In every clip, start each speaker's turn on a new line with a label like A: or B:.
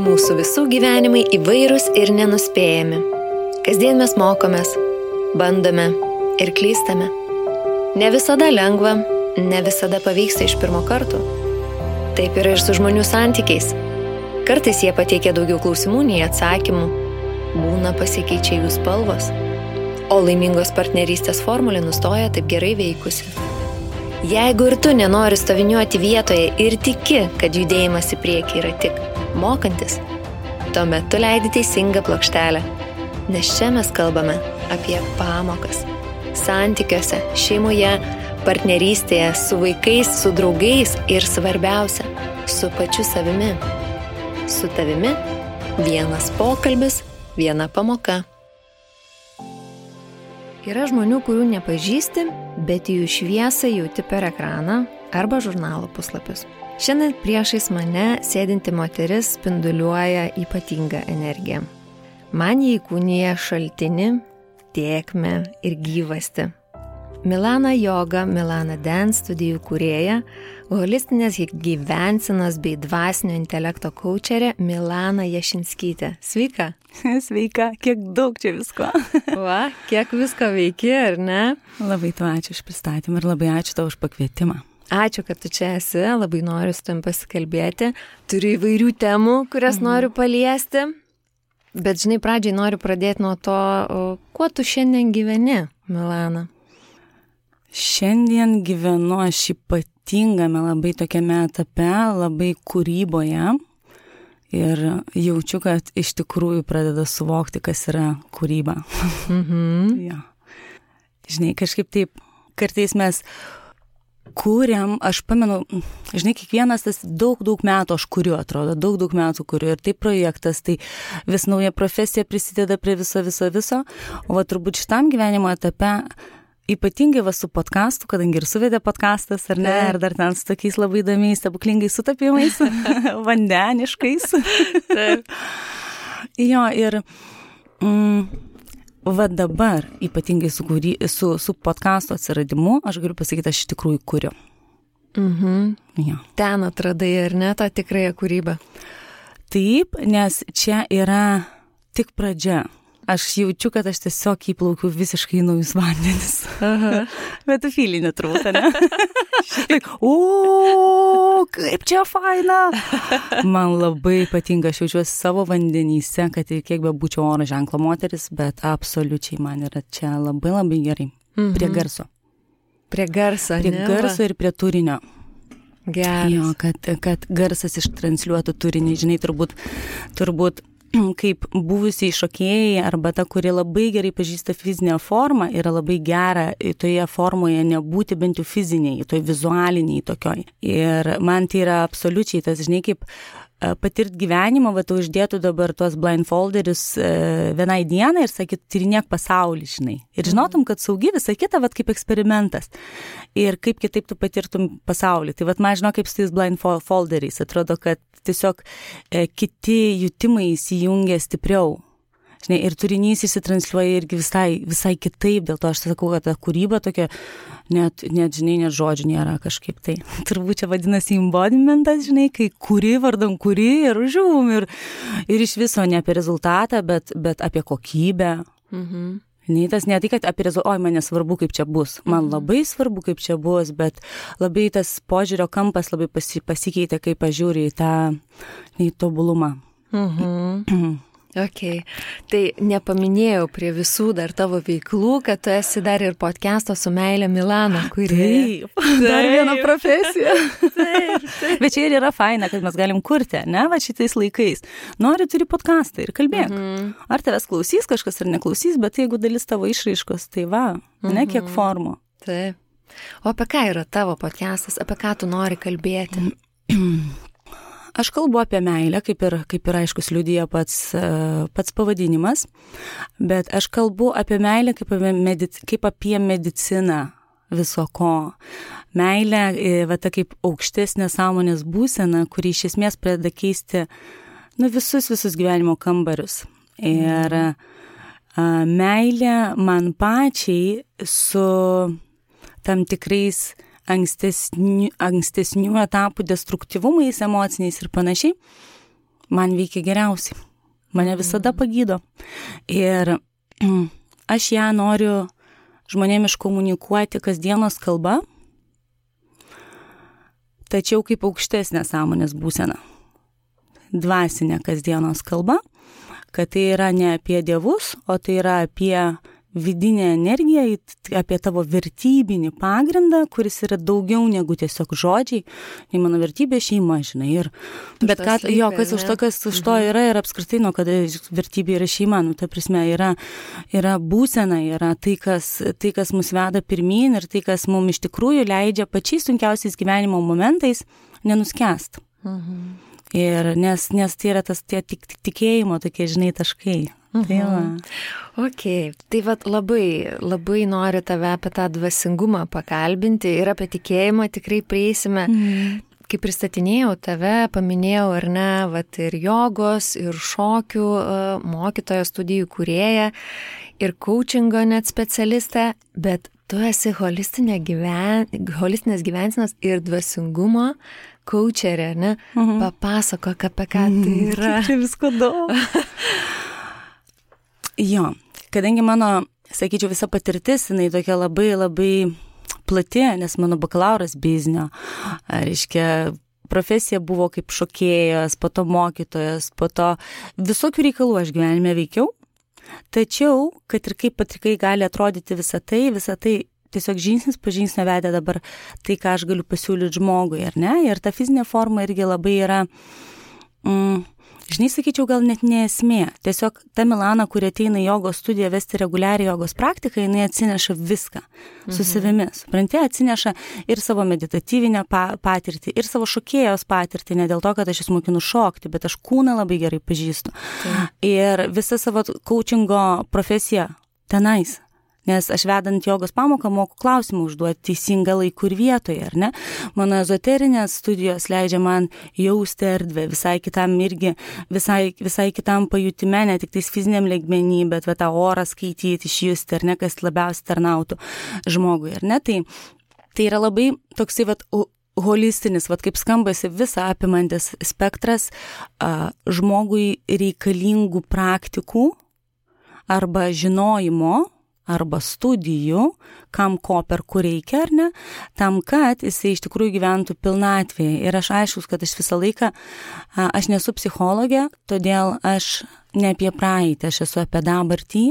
A: Mūsų visų gyvenimai įvairūs ir nenuspėjami. Kasdien mes mokomės, bandome ir klystame. Ne visada lengva, ne visada pavyksta iš pirmo karto. Taip yra ir su žmonių santykiais. Kartais jie pateikia daugiau klausimų nei atsakymų. Būna pasikeičia jų spalvos. O laimingos partnerystės formulė nustoja taip gerai veikusi. Jeigu ir tu nenori stoviniuoti vietoje ir tiki, kad judėjimas į priekį yra tik mokantis, tuomet tu leidi teisingą plokštelę. Nes čia mes kalbame apie pamokas. Santykiuose, šeimoje, partnerystėje, su vaikais, su draugais ir svarbiausia, su pačiu savimi. Su tavimi vienas pokalbis, viena pamoka. Yra žmonių, kurių nepažįsti, bet jų šviesą jauti per ekraną arba žurnalo puslapius. Šiandien priešais mane sėdinti moteris spinduliuoja ypatingą energiją. Man jį įkūnija šaltinį, tėkmę ir gyvastį. Milana Yoga, Milana Dance studijų kūrėja, holistinės gyvensenos bei dvasinio intelekto kaučerė Milana Jašinskytė. Sveika.
B: Sveika, kiek daug čia visko.
A: Va, kiek visko veiki, ar ne?
B: Labai tau ačiū už pristatymą ir labai ačiū tau už pakvietimą.
A: Ačiū, kad tu čia esi, labai noriu su tavim pasikalbėti. Turiu įvairių temų, kurias noriu paliesti. Bet žinai, pradžiai noriu pradėti nuo to, kuo tu šiandien gyveni, Milana?
B: Šiandien gyvenu aš ypatingame labai tokiame etape, labai kūryboje ir jaučiu, kad iš tikrųjų pradeda suvokti, kas yra kūryba. Ja. Žinai, kažkaip taip, kartais mes kūriam, aš pamenu, žinai, kiekvienas tas daug metų aš kuriu, atrodo, daug metų kuriu ir tai projektas, tai vis nauja profesija prisideda prie viso, o va turbūt šitam gyvenimo etape ypatingai va su podcastu, kadangi ir suvedė podcastas, ar ne, ir dar ten su tokiais labai įdomiais, stebuklingais sutapimais, vandeniškais. Taip. Jo, ir va dabar, ypatingai su podcasto atsiradimu, aš galiu pasakyti, aš iš tikrųjų kuriu. Jo.
A: Ten atradai, ar ne, tą tikrąją kūrybą?
B: Taip, nes čia yra tik pradžia. Aš jaučiu, kad aš tiesiog įplaukiu visiškai naujus vandenis. Bet tu fylinė turbūt, ne? Kaip čia faina! Man labai patinka, aš jaučiuosi savo vandenyse, kad ir kiek be būčiau oro ženklo moteris, bet absoliučiai man yra čia labai gerai. Prie garso.
A: Prie garso, ne?
B: Prie garso ir prie turinio.
A: Geras.
B: Jo, kad garsas ištransliuotų turinį, žinai, turbūt kaip buvusiai šokėjai arba ta, kuri labai gerai pažįsta fizinę formą, yra labai gera toje formoje nebūti bent jau fiziniai, toj vizualiniai tokioj. Ir man tai yra absoliučiai tas, žinai, kaip patirt gyvenimą, va, tu uždėtų dabar tuos blindfolderius vienai dienai ir sakyt, tyrinėk pasaulį, žinai. Ir žinotum, kad saugi visą kitą, va, kaip eksperimentas. Ir kaip kitaip tu patirtum pasaulį. Tai va, man žinau, kaip su tais blindfolderiais. Atrodo, kad tiesiog kiti jutimai įsijungia stipriau. Žinai, ir turinys įsitransliuoja irgi visai kitaip, dėl to aš sakau, kad ta kūryba tokia, net žinai, net žodžių nėra kažkaip tai. Turbūt čia vadinasi embodimentas, žinai, kai kuri vardan kuri ir žiūm, ir iš viso ne apie rezultatą, bet apie kokybę. Ne tai, kad apie rezultatą, man nesvarbu, kaip čia bus. Man labai svarbu, kaip čia bus, bet labai tas požiūrio kampas labai pasikeitė, kaip aš žiūriu į tą tobulumą.
A: Ok, tai nepaminėjau prie visų dar tavo veiklų, kad tu esi dar ir podcast'o su meile Milana, kuri...
B: Taip, dar viena profesija. Taip. Bet čia ir yra faina, kad mes galim kurti, ne, va šitais laikais. Nori, turi podcastą ir kalbėk. Ar tavęs klausys kažkas ar neklausys, bet jeigu dalis tavo išraiškos, tai va, ne kiek formų.
A: Taip. O apie ką yra tavo podcastas, apie ką tu nori kalbėti?
B: Aš kalbu apie meilę, kaip ir aiškus liudija pats pavadinimas, bet aš kalbu apie meilę kaip apie mediciną viso ko. Meilė, va ta kaip aukštesnė sąmonės būsena, kuri iš esmės pradeda keisti visus gyvenimo kambarius. Ir meilė man pačiai su tam tikrais ankstesnių etapų destruktyvumais, emociniais ir panašiai, man veikia geriausiai. Mane visada pagydo. Ir aš ją noriu žmonėm iškomunikuoti kasdienos kalba, tačiau kaip aukštesnė sąmonės būsena. Dvasinė kasdienos kalba, kad tai yra ne apie dievus, o tai yra apie vidinę energiją, apie tavo vertybinį pagrindą, kuris yra daugiau negu tiesiog žodžiai. Tai mano vertybė šeima, žinai. Ir, bet ką, kas už to yra ir apskritai, kada vertybė yra šeima, ta prasme, yra būsena, yra tai, kas mus veda pirmyn ir tai, kas mums iš tikrųjų leidžia pačiais sunkiausiais gyvenimo momentais nenuskęst. Ir nes tai yra tas tie tikėjimo tokie, žinai, taškai. Tai
A: Tai labai noriu tave apie tą dvasingumą pakalbinti ir apie tikėjimą tikrai prieisime. Kai pristatinėjau tave, paminėjau ar ne, ir jogos, ir šokių mokytojo, studijų kūrėja, ir coachingo net specialistė, bet tu esi holistinės gyvensenos ir dvasingumo coacherė, ne? Papasakok, apie ką tai yra.
B: Čia visko daug. Jo, kadangi mano, sakyčiau, visa patirtis, jinai tokia labai, labai plati, nes mano bakalauras biznio, reiškia, profesija buvo kaip šokėjas, po to mokytojas, po to visokių reikalų aš gyvenime veikiau, tačiau, kad ir kaip patrikai gali atrodyti visą tai tiesiog žingsnis po žingsnio vedė dabar tai, ką aš galiu pasiūlyti žmogui, ar ne? Ir ta fizinė forma irgi labai yra, žinai, sakyčiau, gal net ne esmė. Tiesiog ta Milana, kuri ateina į jogos studiją vesti reguliariai jogos praktiką, jinai atsineša viską su savimi. Supranti, atsineša ir savo meditatyvinę patirtį, ir savo šokėjos patirtį, ne dėl to, kad aš jas mokinu šokti, bet aš kūną labai gerai pažįstu. Ir visą savo coachingo profesiją tenais. Nes aš vedant jogos pamoką moku klausimą užduoti teisingą laiku ir vietoje, ar ne? Mano ezoterinės studijos leidžia man jausti erdvę visai kitam irgi, visai kitam pajutime, ne tik tais fiziniam lygmenį, bet tą orą skaityti, išjusti, ar ne, kas labiausiai tarnautų žmogui, ar ne? Tai yra labai toksai holistinis, kaip skambasi visą apimantis spektras žmogui reikalingų praktikų arba žinojimo, arba studijų, kam ko per kur reikia, ar ne, tam, kad jisai iš tikrųjų gyventų pilnatvėje. Ir aš aiškus, kad aš visą laiką, aš nesu psichologė, todėl aš ne apie praeitį, aš esu apie dabartį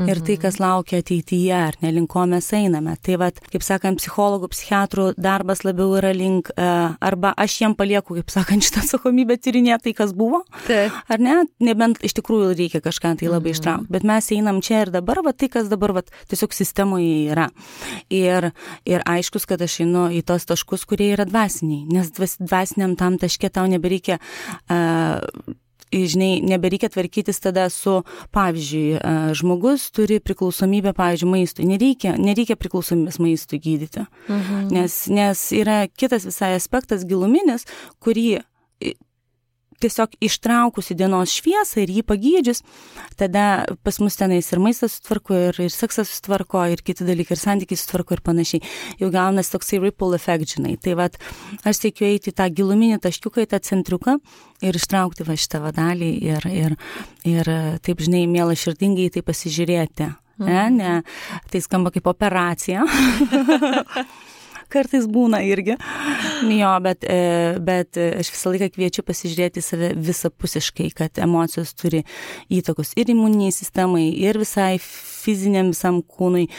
B: ir tai, kas laukia ateityje, ar ne, link ko mes einame. Tai kaip sakant, psichologų, psichiatrų darbas labiau yra link, arba aš jiem palieku, kaip sakant, šitą atsakomybę tyrinėti tai, kas buvo, ar ne, nebent iš tikrųjų reikia kažką tai labai ištraukti, bet mes einam čia ir dabar, tai, kas dabar tiesiog sistemoje yra. Ir aiškus, kad aš einu į tos taškus, kurie yra dvasiniai, nes dvasiniam tam taške tau nebereikia žinai, nebereikia tvarkytis tada su, pavyzdžiui, žmogus turi priklausomybę, pavyzdžiui, maistui. Nereikia priklausomybės maistui gydyti. Nes yra kitas visai aspektas giluminis, kurį tiesiog ištraukus į dienos šviesą ir jį pagydžius, tada pas mus tenais ir maistas sutvarko, ir seksas sutvarko, ir kiti dalykai, ir santykiai sutvarko ir panašiai. Jau gaunas toksai ripple effect, žinai. Tai aš siekiu eiti tą giluminį taškiuką, į tą centriuką ir ištraukti šitą dalį ir taip, žinai, mielai širdingai tai pasižiūrėti. Ne, tai skamba kaip operacija. Kartais būna irgi. Jo, bet aš visą laiką kviečiu pasižiūrėti save visapusiškai, kad emocijos turi įtakos ir imuniniai sistemai, ir visai fiziniam visam kūnui,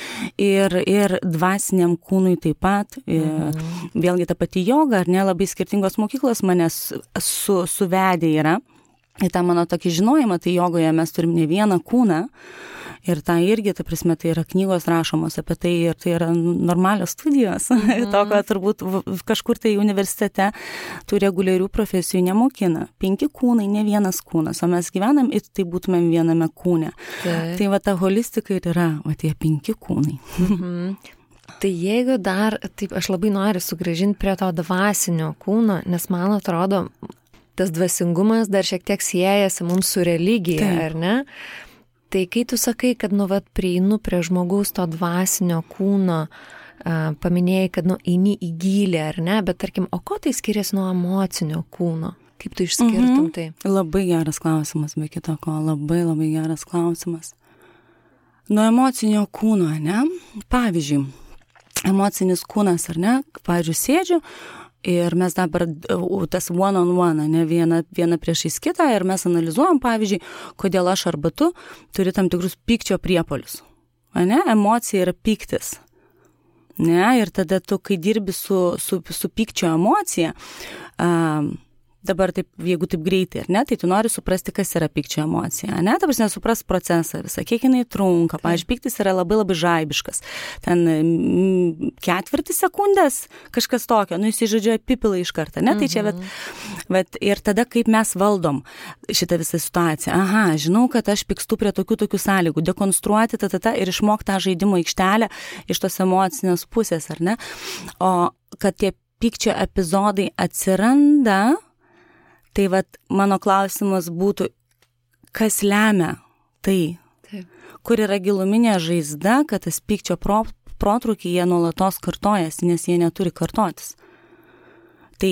B: ir dvasiniam kūnui taip pat. Vėlgi ta pati joga, ar ne, labai skirtingos mokyklos manęs suvedė yra. Ir tą mano tokį žinojimą, tai jogoje mes turim ne vieną kūną. Ir tai irgi, ta prasme, tai yra knygos rašomos apie tai ir tai yra normalios studijos. To, kad turbūt kažkur tai universitete tų reguliarių profesijų nemokina. 5 kūnai, ne vienas kūnas, o mes gyvenam ir tai būtumėm viename kūne. Tai ta holistika ir yra, tie 5 kūnai.
A: Tai jeigu dar, taip, aš labai noriu sugrąžinti prie to dvasinio kūno, nes man atrodo, tas dvasingumas dar šiek tiek siejasi mums su religija, ar ne? Tai kai tu sakai, kad prieinu prie žmogaus to dvasinio kūno, paminėjai, kad eini į gylį, ar ne, bet tarkim, o ko tai skiriasi nuo emocinio kūno? Kaip tu išskirtum tai?
B: Labai geras klausimas, be kito ko, labai geras klausimas. Nuo emocinio kūno, ne? Pavyzdžiui, emocinis kūnas, ar ne? Pavyzdžiui, sėdžiu ir mes dabar tas one on one, ne viena priešais kitą ir mes analizuojam, pavyzdžiui, kodėl aš arba tu turi tam tikrus pykčio priepuolius. Ne? Emocija yra pyktis. Ne? Ir tada tu, kai dirbi su pykčio emocija, dabar taip, jeigu taip greitai, ar ne, tai tu nori suprasti, kas yra pykčio emocija, ne, ta prasme, supras procesą visą, kiek jinai trunka, pavyzdžiui, pyktis yra labai žaibiškas, ten 4 sekundės, kažkas tokio, jis žodžiu apipila iš karto, ne, tai čia, bet ir tada, kaip mes valdom šitą visą situaciją, žinau, kad aš pykstu prie tokių sąlygų, dekonstruoti ir išmokti tą žaidimo aikštelę iš tos emocinės pusės, ar ne, o kad tie pykčio epizodai atsiranda. Tai mano klausimas būtų, kas lemia tai, kur yra giluminė žaizda, kad tas pykčio protrūkiai jie nuolatos kartojasi, nes jie neturi kartotis. Tai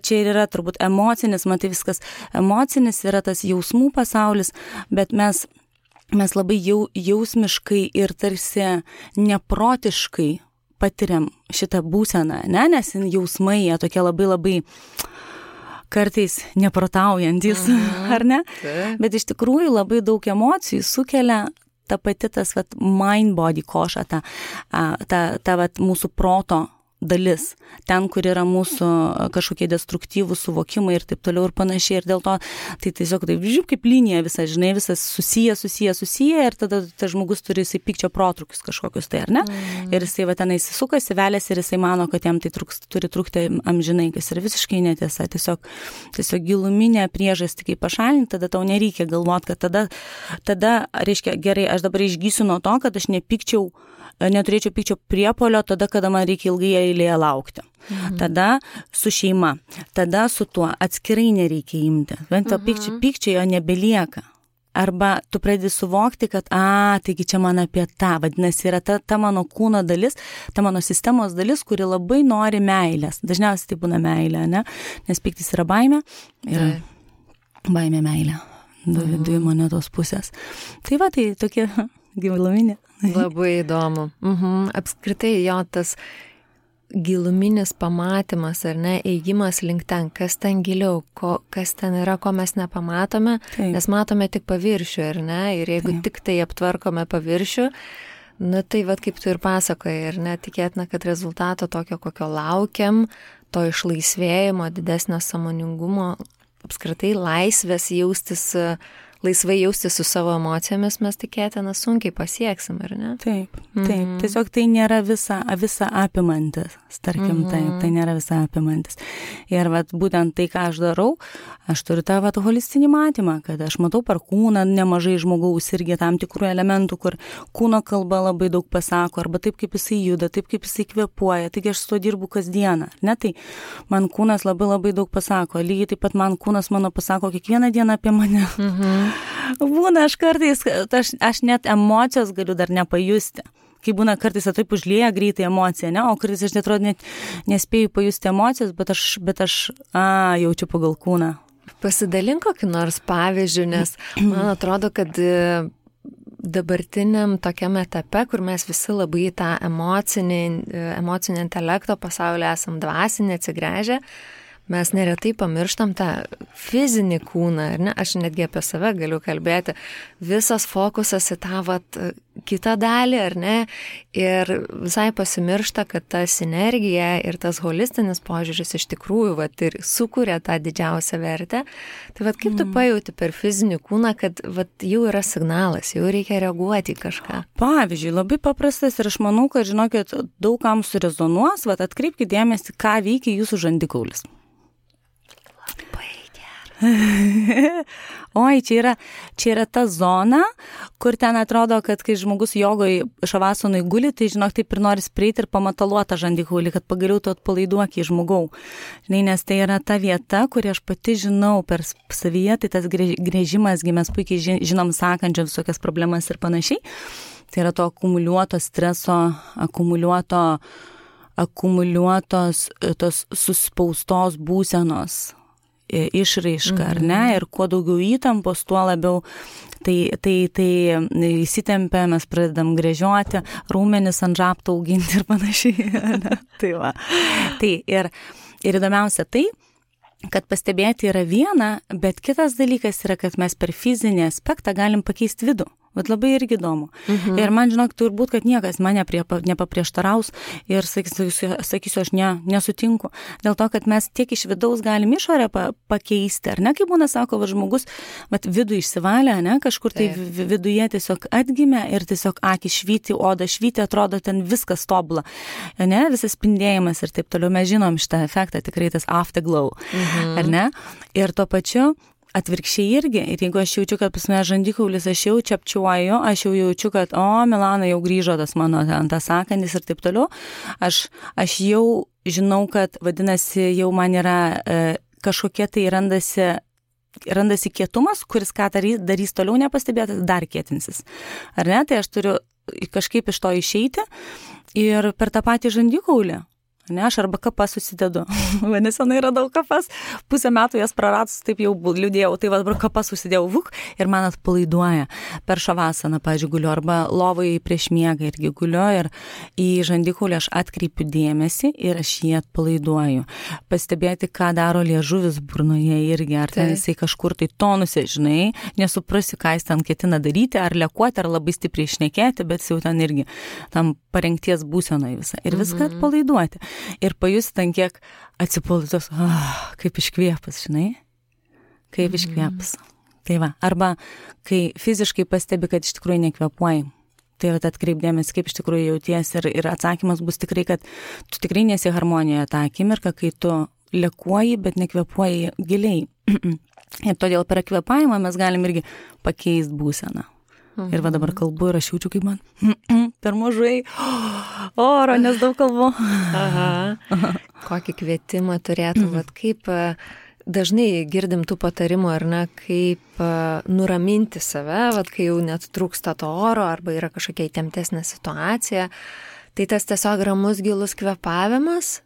B: čia ir yra turbūt emocinis, man tai viskas emocinis yra tas jausmų pasaulis, bet mes labai jausmiškai ir tarsi neprotiškai patiriam šitą būseną, ne? Nes jausmai jie tokie labai kartais neprotaujantis, ar ne? Bet iš tikrųjų labai daug emocijų sukelia ta pati tas mind-body koša, ta mūsų proto dalis, ten, kur yra mūsų kažkokie destruktyvūs suvokimai ir taip toliau ir panašiai. Ir dėl to tai tiesiog taip, kaip linija visas, žinai, visas susiję ir tada tas žmogus turi jisai pykčio protrukius kažkokius tai, ar ne? Ir jisai tenai įsisukasi, veliasi ir jisai mano, kad jam tai turi trukti amžinai, kas yra visiškai netiesa. Tiesiog giluminė priežastį, kaip pašalinti, tada tau nereikia galvoti, kad tada, reiškia, gerai, aš dabar išgysiu nuo to, kad aš neturėčiau pykčio priepuolio tada, kada man reikia ilgai eilėje laukti. Tada su šeima, tada su tuo atskirai nereikia imti. Bent to pykčio jo nebelieka. Arba tu pradedi suvokti, kad, taigi čia man apie tą, vadinasi, yra ta mano kūno dalis, ta mano sistemos dalis, kuri labai nori meilės. Dažniausiai tai būna meilė, ne? Nes pyktis yra baimė, yra baimė meilė. Dvi monetos pusės. Tai tai tokie giluminė.
A: Labai įdomu. Apskritai jo tas giluminis pamatymas, ar ne, ėjimas link ten, kas ten giliau, kas ten yra, ko mes nepamatome, nes matome tik paviršių, ar ne, ir jeigu tik tai aptvarkome paviršių, tai kaip tu ir pasakojai, ar ne, tikėtina, kad rezultato tokio, kokio laukiam, to išlaisvėjimo, didesnio sąmoningumo, apskritai laisvės laisvai jaustis su savo emocijomis mes tikėtina sunkiai pasieksim, ar ne?
B: Taip. Tiesiog tai nėra visa apimantis, tarkim, tai nėra visa apimantis. Ir būtent tai, ką aš darau, aš turiu tą holistinį matymą, kad aš matau per kūną nemažai žmogaus irgi tam tikrų elementų, kur kūno kalba labai daug pasako, arba taip, kaip jisai juda, taip, kaip jisai kvėpuoja, taigi aš su to dirbu kasdieną, ne? Tai man kūnas labai daug pasako, lygiai taip pat man kūnas mano pasako kiekvieną dieną apie mane. Būna aš kartais, aš net emocijos galiu dar nepajusti. Kai būna kartais taip užlieja greitai emocija, ne? O kartais aš net nespėju pajusti emocijos, bet aš jaučiu pagal kūną.
A: Pasidalink kokį nors pavyzdžių, nes man atrodo, kad dabartiniam tokiam etape, kur mes visi labai tą emocinį intelekto pasaulį esam dvasinį atsigręžę, mes neretai pamirštam tą fizinį kūną, ar ne? Aš netgi apie save galiu kalbėti. Visas fokusas į tą kitą dalį, ar ne? Ir visai pasimiršta, kad ta sinergija ir tas holistinis požiūris iš tikrųjų ir sukuria tą didžiausią vertę. Tai kaip tu pajauti per fizinį kūną, kad jau yra signalas, jau reikia reaguoti į kažką?
B: Pavyzdžiui, labai paprastas ir aš manau, kad žinokit, daug kam surezonuos, atkreipkite dėmesį, ką veikia jūsų žandikaulis. Oi, čia yra ta zona, kur ten atrodo, kad kai žmogus jogoj šavasonai guli, tai žinok, taip ir nori prieiti ir pamataluoti žandikaulį, kad pagaliau tu atpalaiduoki žmogau. Žinai, nes tai yra ta vieta, kurį aš pati žinau per savyje, tai tas grėžimas, mes puikiai žinom sakančią visokias problemas ir panašiai. Tai yra to akumuliuoto streso, akumuliuotos tos suspaustos būsenos. išraiška, ar ne, ir kuo daugiau įtampos, tuo labiau tai įsitempia, mes pradedam gręžioti, raumenis ant žabto auginti ir panašiai. Tai va. Tai ir įdomiausia tai, kad pastebėti yra viena, bet kitas dalykas yra, kad mes per fizinį aspektą galim pakeisti vidų. Bet labai irgi įdomu. Ir man, žinok, turbūt, kad niekas mane nepaprieštaraus ir sakysiu, aš nesutinku. Dėl to, kad mes tiek iš vidaus galim išorę pakeisti, ar ne, kaip būna, sako, žmogus, vidų išsivalė, ne, kažkur tai viduje tiesiog atgimė ir tiesiog akis švyti, oda švyti, atrodo ten viskas tobula, ne, visas spindėjimas ir taip toliau. Mes žinom šitą efektą, tikrai tas afterglow, ar ne? Ir tuo pačiu atvirkščiai irgi. Ir jeigu aš jaučiu, kad pas mane žandikaulis, aš jau čepčiuoju, aš jau jaučiu, kad, Milana jau grįžo tas mano tas sąkandis ir taip toliau, aš jau žinau, kad vadinasi, jau man yra kažkokie tai randasi kietumas, kuris ką darys toliau nepastebėtas, dar kietinsis. Ar ne? Tai aš turiu kažkaip iš to išeiti ir per tą patį žandikaulį. Ne, aš arba kapas susidedu. Nesenai radau kapas, pusę metų jas praradus, taip jau liūdėjau, tai dabar kapas susidėjau ir man atpalaiduoja. Per šavasaną, pavyzdžiui, guliu, arba lovai prieš miegą irgi guliu ir į žandikaulį aš atkreipiu dėmesį ir aš jį atpalaiduoju. Pastebėti, ką daro liežuvis burnoje irgi, ar ten jisai kažkur tai tonuse, žinai, nesuprasi, ką jis ten ketina daryti, ar lekuoti, ar labai stipriai šnekėti, bet jau ten irgi tam parengties būsenoje visą. Ir viską atpalaiduoti. Ir pajusti ten kiek atsipalaiduos, kaip iškvėpas, žinai, kaip iškvėpas. Tai va, arba kai fiziškai pastebi, kad iš tikrųjų nekvėpuoji, tai va atkreipdėmės, kaip iš tikrųjų jauties ir atsakymas bus tikrai, kad tu tikrai nesi harmonijoje tą akimirką, kai tu lekuoji, bet nekvėpuoji giliai. Ir todėl per kvėpavimą mes galim irgi pakeisti būseną. Ir va dabar kalbu ir aš jaučiu, kaip man per mažai oro, nes daug kalbu.
A: Kokį kvietimą turėtum, kaip dažnai girdim tų patarimų, ar ne, kaip nuraminti save, kai jau net trūksta to oro, arba yra kažkokia įtemptesnė situacija. Tai tas tiesiog ramus gilus kvėpavimas?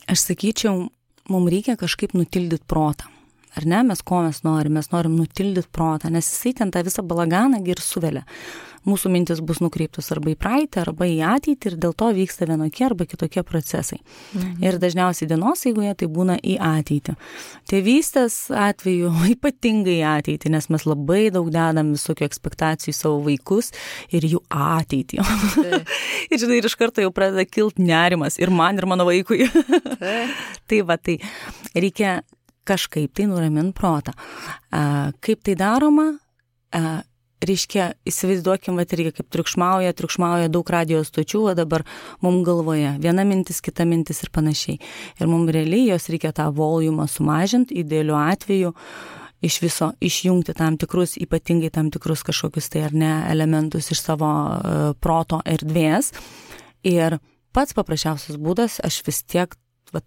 B: Aš sakyčiau, mums reikia kažkaip nutildyti protą. Ar ne, mes norim nutildyti protą, nes jisai ten tą visą balaganą ir suvelia. Mūsų mintis bus nukreiptos arba į praeitį, arba į ateitį ir dėl to vyksta vienokie arba kitokie procesai. Ir dažniausiai dienos eigoje tai būna į ateitį. Tėvystės atveju ypatingai į ateitį, nes mes labai daug dedam visokių ekspektacijų į savo vaikus ir jų ateitį. Ir žinai, ir iš karto jau pradeda kilti nerimas ir man, ir mano vaikui. Tai va, tai reikia kažkaip tai nuramint protą. Kaip tai daroma? Reiškia, įsivaizduokim, irgi kaip triukšmauja daug radijos stočių, o dabar mums galvoje viena mintis, kita mintis ir panašiai. Ir mums realiai jos reikia tą volumą sumažinti, idealiu atveju iš viso išjungti tam tikrus, ypatingai tam tikrus kažkokius tai ar ne elementus iš savo proto erdvės. Ir pats paprasčiausias būdas, aš vis tiek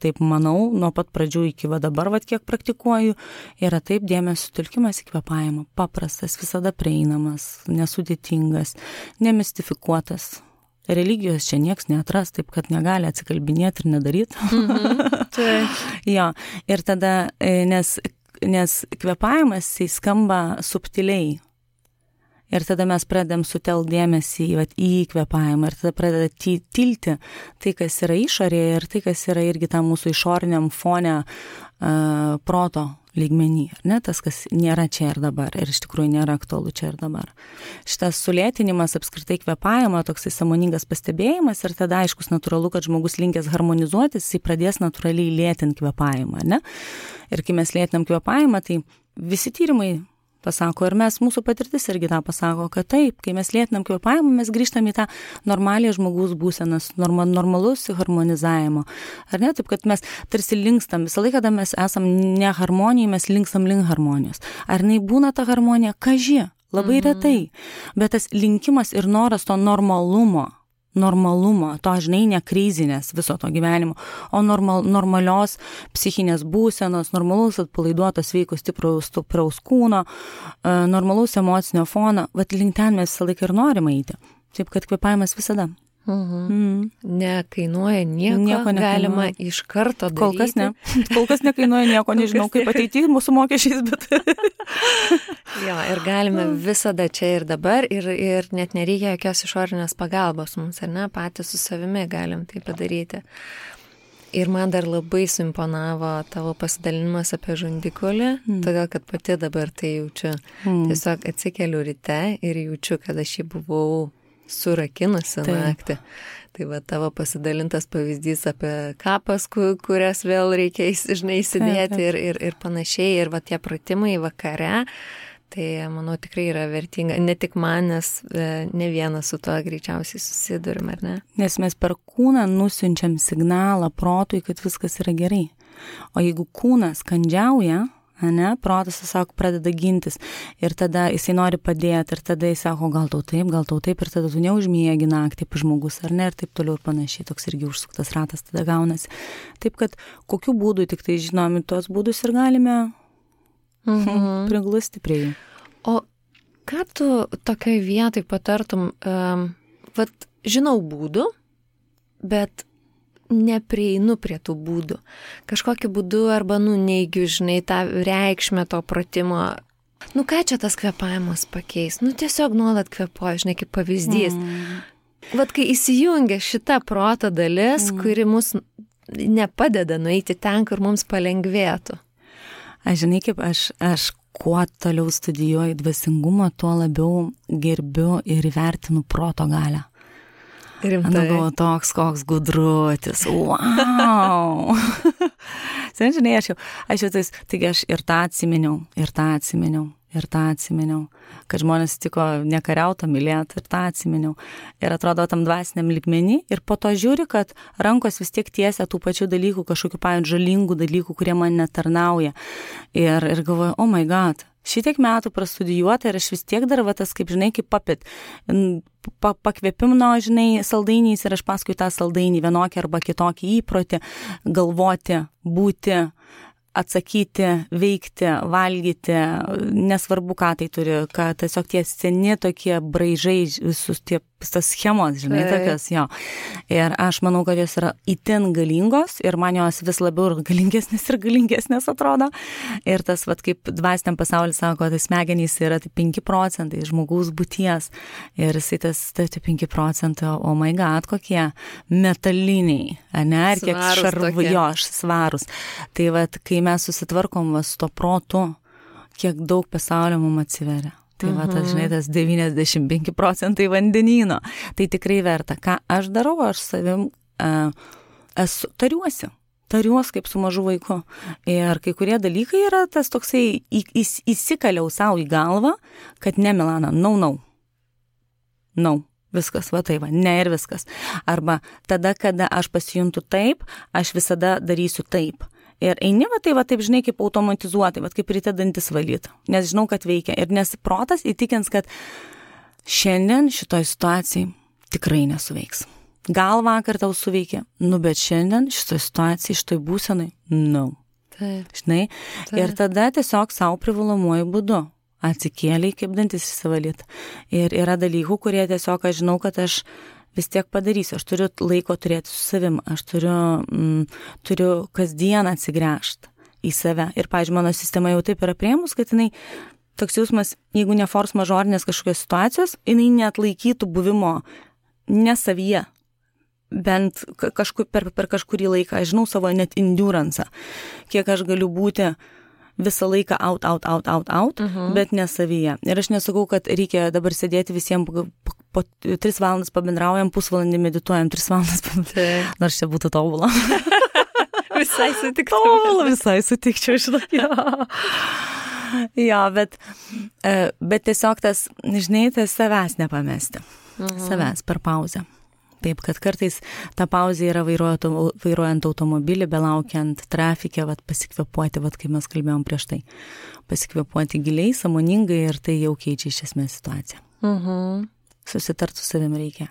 B: taip manau, nuo pat pradžių iki dabar, kiek praktikuoju, yra taip dėmesio sutelkimas į kvėpavimą. Paprastas, visada prieinamas, nesudėtingas, nemistifikuotas. Religijos čia nieks neatras, taip kad negali atsikalbinėti ir nedaryti. Jo, ir tada, nes kvėpavimas skamba subtiliai. Ir tada mes pradedam sutelkti dėmesį į kvėpavimą ir tada pradeda tilti tai, kas yra išorėje ir tai, kas yra irgi tam mūsų išoriniam fone proto lygmenį. Ne? Tas, kas nėra čia ir dabar ir iš tikrųjų nėra aktualu čia ir dabar. Šitas sulėtinimas apskritai kvėpavimo, toksai sąmoningas pastebėjimas ir tada aiškus natūralu, kad žmogus linkęs harmonizuotis, jis pradės natūraliai lėtinti kvėpavimą. Ne? Ir kai mes lėtinam kvėpavimą, tai visi tyrimai pasako, ir mūsų patirtis irgi tą pasako, kad taip, kai mes lėtinam kvėpavimą, mes grįžtam į tą normalią žmogaus būsenas, normalus harmonizavimo. Ar ne? Taip, kad mes tarsi linkstam, visą laiką, kada mes esam ne harmonijai, mes linkstam link harmonijos. Ar jinai būna ta harmonija? Kaži, labai retai. Bet tas linkimas ir noras to normalumo, to, žinai, ne krizinės viso to gyvenimo, o normalios psichinės būsenos, normalaus atpalaiduoto sveiko stipraus kūno, normalaus emocinio fono, link ten mes visą laiką ir norime eiti. Taip, kad kvėpavimas visada.
A: Nekainuoja nieko galima iš karto daryti.
B: Kol kas ne. Kol kas nekainuoja nieko, nežinau, kaip ateity mūsų mokesčiais, bet...
A: Jo, ir galime visada čia ir dabar, ir net nereikia jokios išorinės pagalbos mums, ar ne, patys su savimi galim tai padaryti. Ir man dar labai suimponavo tavo pasidalinimas apie žandikulį, todėl kad pati dabar tai jaučiu. Tiesiog atsikeliu ryte ir jaučiu, kad aš jį buvau surakinusi naktį. Tai va tavo pasidalintas pavyzdys apie kapas, kurias vėl reikia įsidėti ir panašiai. Ir va tie pratimai vakare, tai manau tikrai yra vertinga. Ne tik man, nes ne vienas su tuo greičiausiai susidurim, ar ne?
B: Nes mes per kūną nusiunčiam signalą protui, kad viskas yra gerai. O jeigu kūnas kandžiauja, protas tiesiog pradeda gintis ir tada jisai nori padėti ir tada jis sako, gal tau taip ir tada tu neužmiegi naktį žmogus, ar ne, ir taip toliau ir panašiai, toks irgi užsuktas ratas tada gaunasi. Taip kad kokiu būdu tik tai žinomi tuos būdus ir galime priglusti prie jų.
A: O ką tu tokioj vietoj patartum, žinau būdų, bet neprieinu prie tų būdų. Kažkokiu būdu arba neigiu, žinai, tą reikšmę to pratimo. Ką čia tas kvėpavimas pakeis? Tiesiog nuolat kvėpuoju, žinai, kaip pavyzdys. Kai įsijungia šita proto dalis, kuri mus nepadeda nueiti ten, kur mums palengvėtų.
B: Aš žinai, kaip aš kuo toliau studijuoju dvasingumą, tuo labiau gerbiu ir įvertinu proto galią. Galvoju, toks koks gudruotis. Wow! Žinai, aš jau taigi aš ir tą atsiminiau, kad žmonės tiko nekariauto mylėti, ir tą atsiminiau. Ir atrodo tam dvasiniam lygmenį ir po to žiūri, kad rankos vis tiek tiesia tų pačių dalykų, kažkokių žalingų dalykų, kurie man netarnauja. Ir galvoju, oh my god, šitiek metų prastudijuota ir aš vis tiek dar tas, kaip žinai, kaip pakvėpimno, žinai, saldainiais ir aš paskui tą saldainį vienokį arba kitokį įprotį galvoti, būti, atsakyti, veikti, valgyti, nesvarbu, ką tai turi, kad tiesiog tie seni tokie braižai, visus tas schemos, žinai, tokios, jo. Ir aš manau, kad jos yra itin galingos ir man jos vis labiau galingesnės atrodo. Ir tas, kaip dvasiniam pasaulis sako, tai smegenys yra 5% žmogaus būties. Ir jisai tas 5%, oh my god, kokie metaliniai, ne, ir kiek svarūs. Tai kai mes susitvarkom su to protu, kiek daug pasaulio mums atsiveria. Tai tas, žinai, tas 95% vandenyno. Tai tikrai verta. Ką aš darau, aš savim tariuosi kaip su mažu vaiku. Ir kai kurie dalykai yra tas toksai, įsikaliau savo į galvą, kad ne, Milana, no. Viskas, ne ir viskas. Arba tada, kada aš pasijuntu taip, aš visada darysiu taip. Ir eini, taip, žinai, kaip automatizuotai, kaip ryte dantis valyti, nes žinau, kad veikia. Ir nes protas įtikins, kad šiandien šitoj situacijai tikrai nesuveiks. Gal vakar tau suveikė, bet šiandien šitoj situacijai, šitoj būsenai, no.
A: Taip.
B: Žinai, taip. Ir tada tiesiog savo privalomuoju būdu atsikėliai, kaip dantis įsivalyti. Ir yra dalykų, kurie tiesiog aš žinau, kad aš vis tiek padarysiu. Aš turiu laiko turėti su savim. Aš turiu kasdien atsigręžti į save. Ir, pavyzdžiui, mano sistema jau taip yra priėmus, kad jinai, toks jausmas, jeigu ne force majorinės kažkokios situacijos, jinai neatlaikytų buvimo ne savyje. Bent per kažkurį laiką. Aš žinau savo net enduransą. Kiek aš galiu būti visą laiką out, bet ne savyje. Ir aš nesakau, kad reikia dabar sėdėti visiems po 3 valandas pabendraujam, pusvalandį medituojam, 3 valandas pabendraujam. Nors čia būtų tobula. Visai sutikčiau, žinok. Jo, bet tiesiog tas, žinai, tas savęs nepamesti. Savęs per pauzę. Taip, kad kartais ta pauzė yra vairuojant automobilį, belaukiant trafikę, pasikvėpuoti, kaip mes kalbėjom prieš tai. Pasikvėpuoti giliai, sąmoningai ir tai jau keičia iš esmės situaciją. Susitart su savim reikia.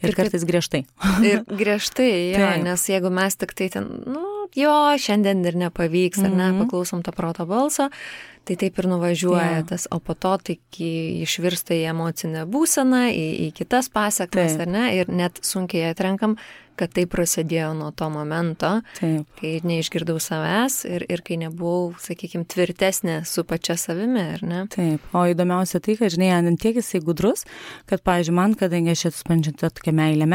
B: Ir kartais griežtai.
A: Ir griežtai, jo, nes jeigu mes tik tai ten, jo, šiandien ir nepavyks, ar ne, paklausom to proto balso, tai taip ir nuvažiuoja tas, o po to tai išvirsta į emocinę būseną, į kitas pasekmes, ar ne, ir net sunkiai atrenkam, kad tai prasidėjo nuo to momento, kai neišgirdau savęs ir kai nebuvau, sakykime, tvirtesnė su pačia savimi, ar ne?
B: Taip, o įdomiausia tai, kad, žinai, ant tiek jisai gudrus, kad, pavyzdžiui, man, kadangi aš esu spančianti tokia meilė,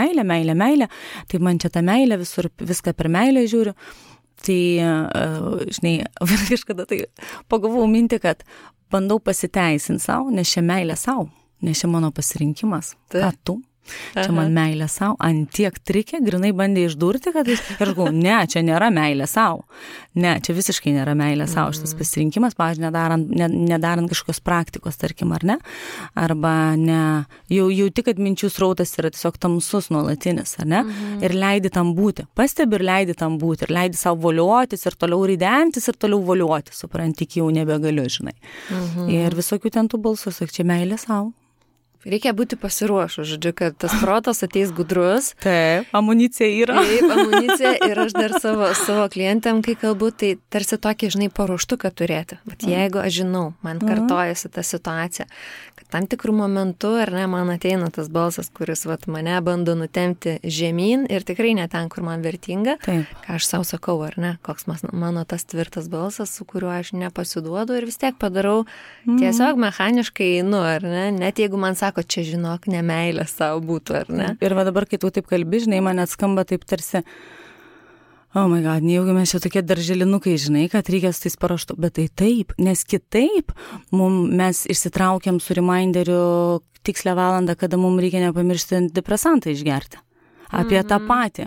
B: tai man čia ta meilė, viską per meilę žiūriu, tai, žinai, kažkada tai pagalvojau mintį, kad bandau pasiteisinti savo, nes čia meilė savo, nes čia mano pasirinkimas, ką tu. Čia man meilė savo, ant tiek trikė, grinai bandė išdurti, kad aš galvoju, ne, čia nėra meilė savo. Ne, čia visiškai nėra meilė savo. Šitas pasirinkimas, pavyzdžiui, nedarant kažkokios praktikos, tarkim, ar ne? Arba ne, jau tik, kad minčių srautas yra tiesiog tamsus nuolatinis, ar ne? Ir leidi tam būti. Pastebi ir leidi tam būti. Ir leidi savo voliotis ir toliau ridentis ir toliau voliotis. Supranti, jau nebegaliu, žinai. Ir visokių ten tų balsų, sak, čia meilė savo.
A: Reikia būti pasiruošus, žodžiu, kad tas protas ateis gudrus.
B: Taip, amunicija yra.
A: Taip, amunicija ir aš dar savo klientėm, kai kalbu, tai tarsi tokį, žinai, paruoštuką turėti. Bet jeigu aš žinau, man kartojasi ta situacija, kad tam tikrų momentų, ar ne, man ateina tas balsas, kuris mane bando nutempti žemyn ir tikrai ne ten, kur man vertinga,
B: taip.
A: Ką aš savo sakau, ar ne, koks mano tas tvirtas balsas, su kuriuo aš nepasiduodu ir vis tiek padarau tiesiog mechaniškai einu, ar ne, net jeigu man sako, čia žinok, nemeilė savo būtų, ar ne?
B: Ir va dabar, kai tu taip kalbi, žinai, man atskamba taip tarsi, oh my god, nejaugi mes čia tokie darželinukai, žinai, kad reikia su tais paruoštų, bet tai taip, nes kitaip mes išsitraukiam su reminderiu tikslę valandą, kada mums reikia nepamiršti antidepresantą išgerti. Apie tą patį.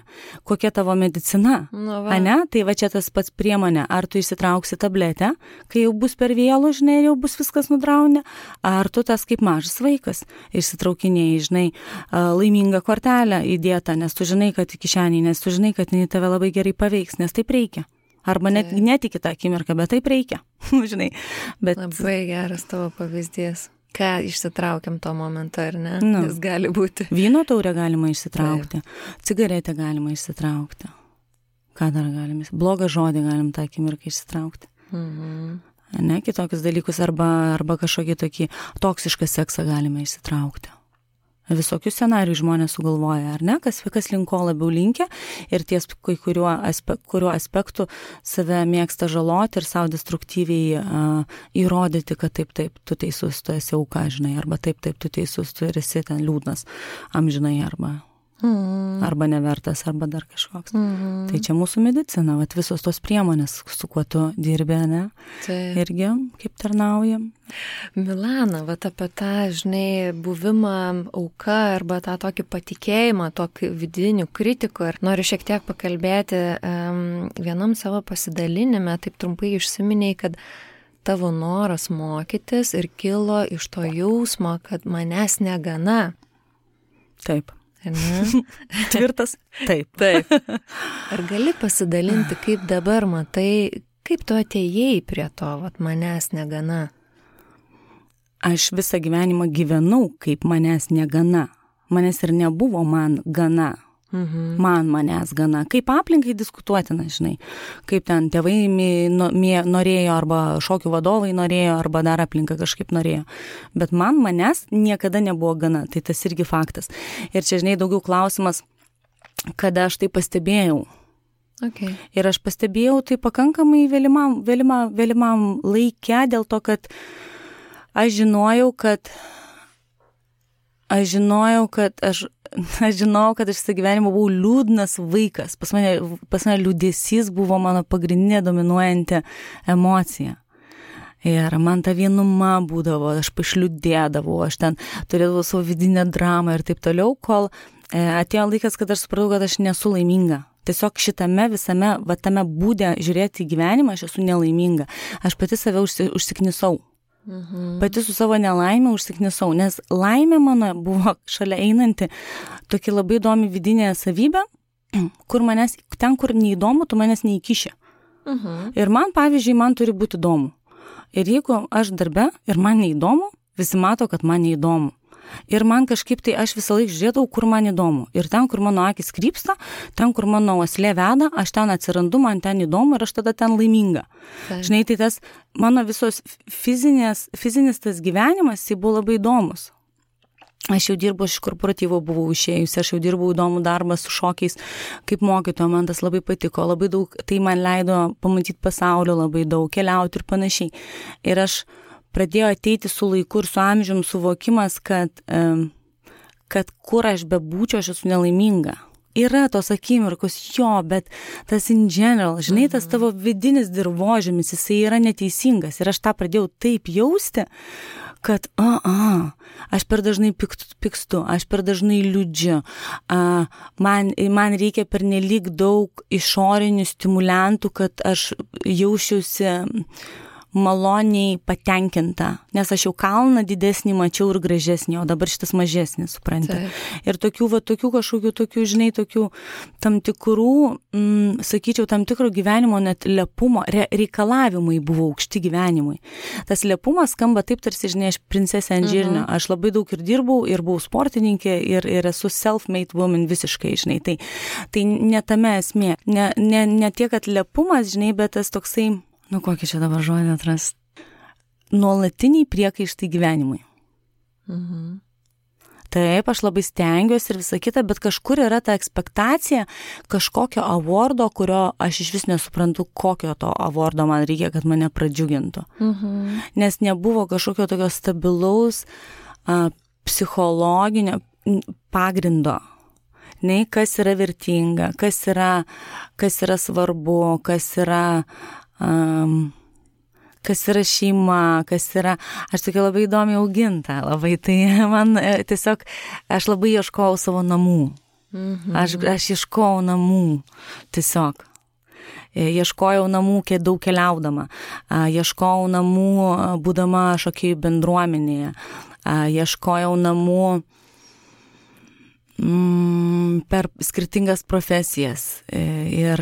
B: Kokia tavo medicina? Ane? Tai va čia tas pats priemonė. Ar tu išsitrauksi tabletę, kai jau bus per vėlu, žinai, ir jau bus viskas nudraunę, ar tu tas kaip mažas vaikas išsitraukinėjai, žinai, laimingą kortelę įdėtą, nes tu žinai, kad į kišenį, nes tu žinai, kad jinai tave labai gerai paveiks, nes taip reikia. Arba net iki tą akimirką, bet taip reikia. Žinai. Bet...
A: Labai geras tavo pavyzdys. Ką išsitraukiam to momento, ar ne? Jis gali būti.
B: Vyno taurę galima išsitraukti, cigaretę galima išsitraukti. Ką dar galime? Blogą žodį galim tą akimirką išsitraukti. Ne, kitokius dalykus arba kažkokį tokį toksišką seksą galime išsitraukti. Visokių scenarijų žmonės sugalvoja, ar ne? Kas link ko labiau linkia ir ties kuriuo aspektu save mėgsta žaloti ir savo destruktyviai įrodyti, kad taip, tu teisus, tu esi auka, žinai, arba taip, tu teisus, tu esi ten liūdnas, amžinai, arba nevertas, arba dar kažkoks. Tai čia mūsų medicina, vat visos tos priemonės, su kuo tu dirbi, ne? Irgi kaip tarnaujam.
A: Milana, vat apie tą, žinai, buvimą auka arba tą tokį patikėjimą, tokį vidinių kritikų. Ir noriu šiek tiek pakalbėti vienam savo pasidalinime, taip trumpai išsiminėjai, kad tavo noras mokytis ir kilo iš to jausmo, kad manęs negana.
B: Taip. Tvirtas? Taip.
A: Taip. Ar gali pasidalinti, kaip dabar matai, kaip tu atėjai prie to, vat manęs negana?
B: Aš visą gyvenimą gyvenau, kaip manęs negana. Manęs ir nebuvo man gana. Manęs gana. Kaip aplinkai diskutuotina, žinai. Kaip ten tėvai norėjo, arba šokių vadovai norėjo, arba dar aplinka kažkaip norėjo. Bet manęs niekada nebuvo gana. Tai tas irgi faktas. Ir čia, žinai, daugiau klausimas, kada aš tai pastebėjau.
A: Okay.
B: Ir aš pastebėjau tai pakankamai vėlimam laike, dėl to, kad aš žinojau, kad aš visą gyvenimą buvau liūdnas vaikas. Pas mane liūdesys buvo mano pagrindinė dominuojanti emocija. Ir man ta vienuma būdavo, aš pašliūdėdavau, aš ten turėdavau savo vidinę dramą ir taip toliau, kol atėjo laikas, kad aš supratau, kad aš nesu laiminga. Tiesiog šitame visame, tame būde žiūrėti į gyvenimą, aš esu nelaiminga. Aš pati save užsiknisau. Pati su savo nelaimė užsiknisau, nes laimė mano buvo šalia einanti tokia labai įdomi vidinė savybė, kur ten, kur neįdomu, tu manęs neįkiši. Ir man, pavyzdžiui, man turi būti įdomu. Ir jeigu aš darbe ir man neįdomu, visi mato, kad man neįdomu. Ir man kažkaip tai aš visą laiką žiūrėdavau, kur man įdomu. Ir ten, kur mano akis krypsta, ten, kur mano uoslė veda, aš ten atsirandu, man ten įdomu ir aš tada ten laiminga. Žinai, tai tas mano visos fizinis tas gyvenimas, tai buvo labai įdomus. Aš jau dirbau, iš korporatyvo buvau išėjusi, aš jau dirbau įdomų darbą su šokiais, kaip mokytoja, man tas labai patiko, labai daug, tai man leido pamatyti pasaulio labai daug, keliauti ir panašiai. Ir aš pradėjau ateiti su laiku ir su amžium suvokimas, kad kur aš bebūčiau, aš esu nelaiminga. Yra tos akimirkos, bet tas in general, žinai, tas tavo vidinis dirvožemis, jisai yra neteisingas. Ir aš tą pradėjau taip jausti, kad aš per dažnai pykstu, aš per dažnai liūdžiu, man reikia pernelyg daug išorinių stimuliantų, kad aš jausčiausi maloniai patenkinta, nes aš jau kalną didesnį mačiau ir gražesnį, o dabar šitas mažesnis, supranti. Ir tokių kažkokių, žinai, tokių tam tikrų, sakyčiau, tam tikro gyvenimo net lepumo, reikalavimai buvo aukšti gyvenimui. Tas lepumas skamba taip, tarsi, žinai, aš princesė ant žirnio. Aš labai daug ir dirbau, ir buvau sportininkė, ir esu self-made woman visiškai, žinai. Tai ne tame esmė. Ne tiek, kad lepumas, žinai, bet tas toksai, kokį čia dabar žodį atrast, nuolatiniai priekaištai gyvenimui. Taip, aš labai stengiuosi ir visą kitą, bet kažkur yra ta ekspektacija kažkokio awardo, kurio aš iš vis nesuprantu, kokio to awardo man reikia, kad mane pradžiugintų. Nes nebuvo kažkokio tokio stabilaus psichologinio pagrindo. Nei, kas yra vertinga, kas yra svarbu, kas yra šeima, kas yra, aš tokia labai įdomiai auginta, labai, tai man tiesiog, aš labai ieškojau savo namų, aš ieškojau namų, tiesiog, ieškojau namų daug keliaudama, ieškojau namų būdama šokėjų bendruomenėje, ieškojau namų per skirtingas profesijas ir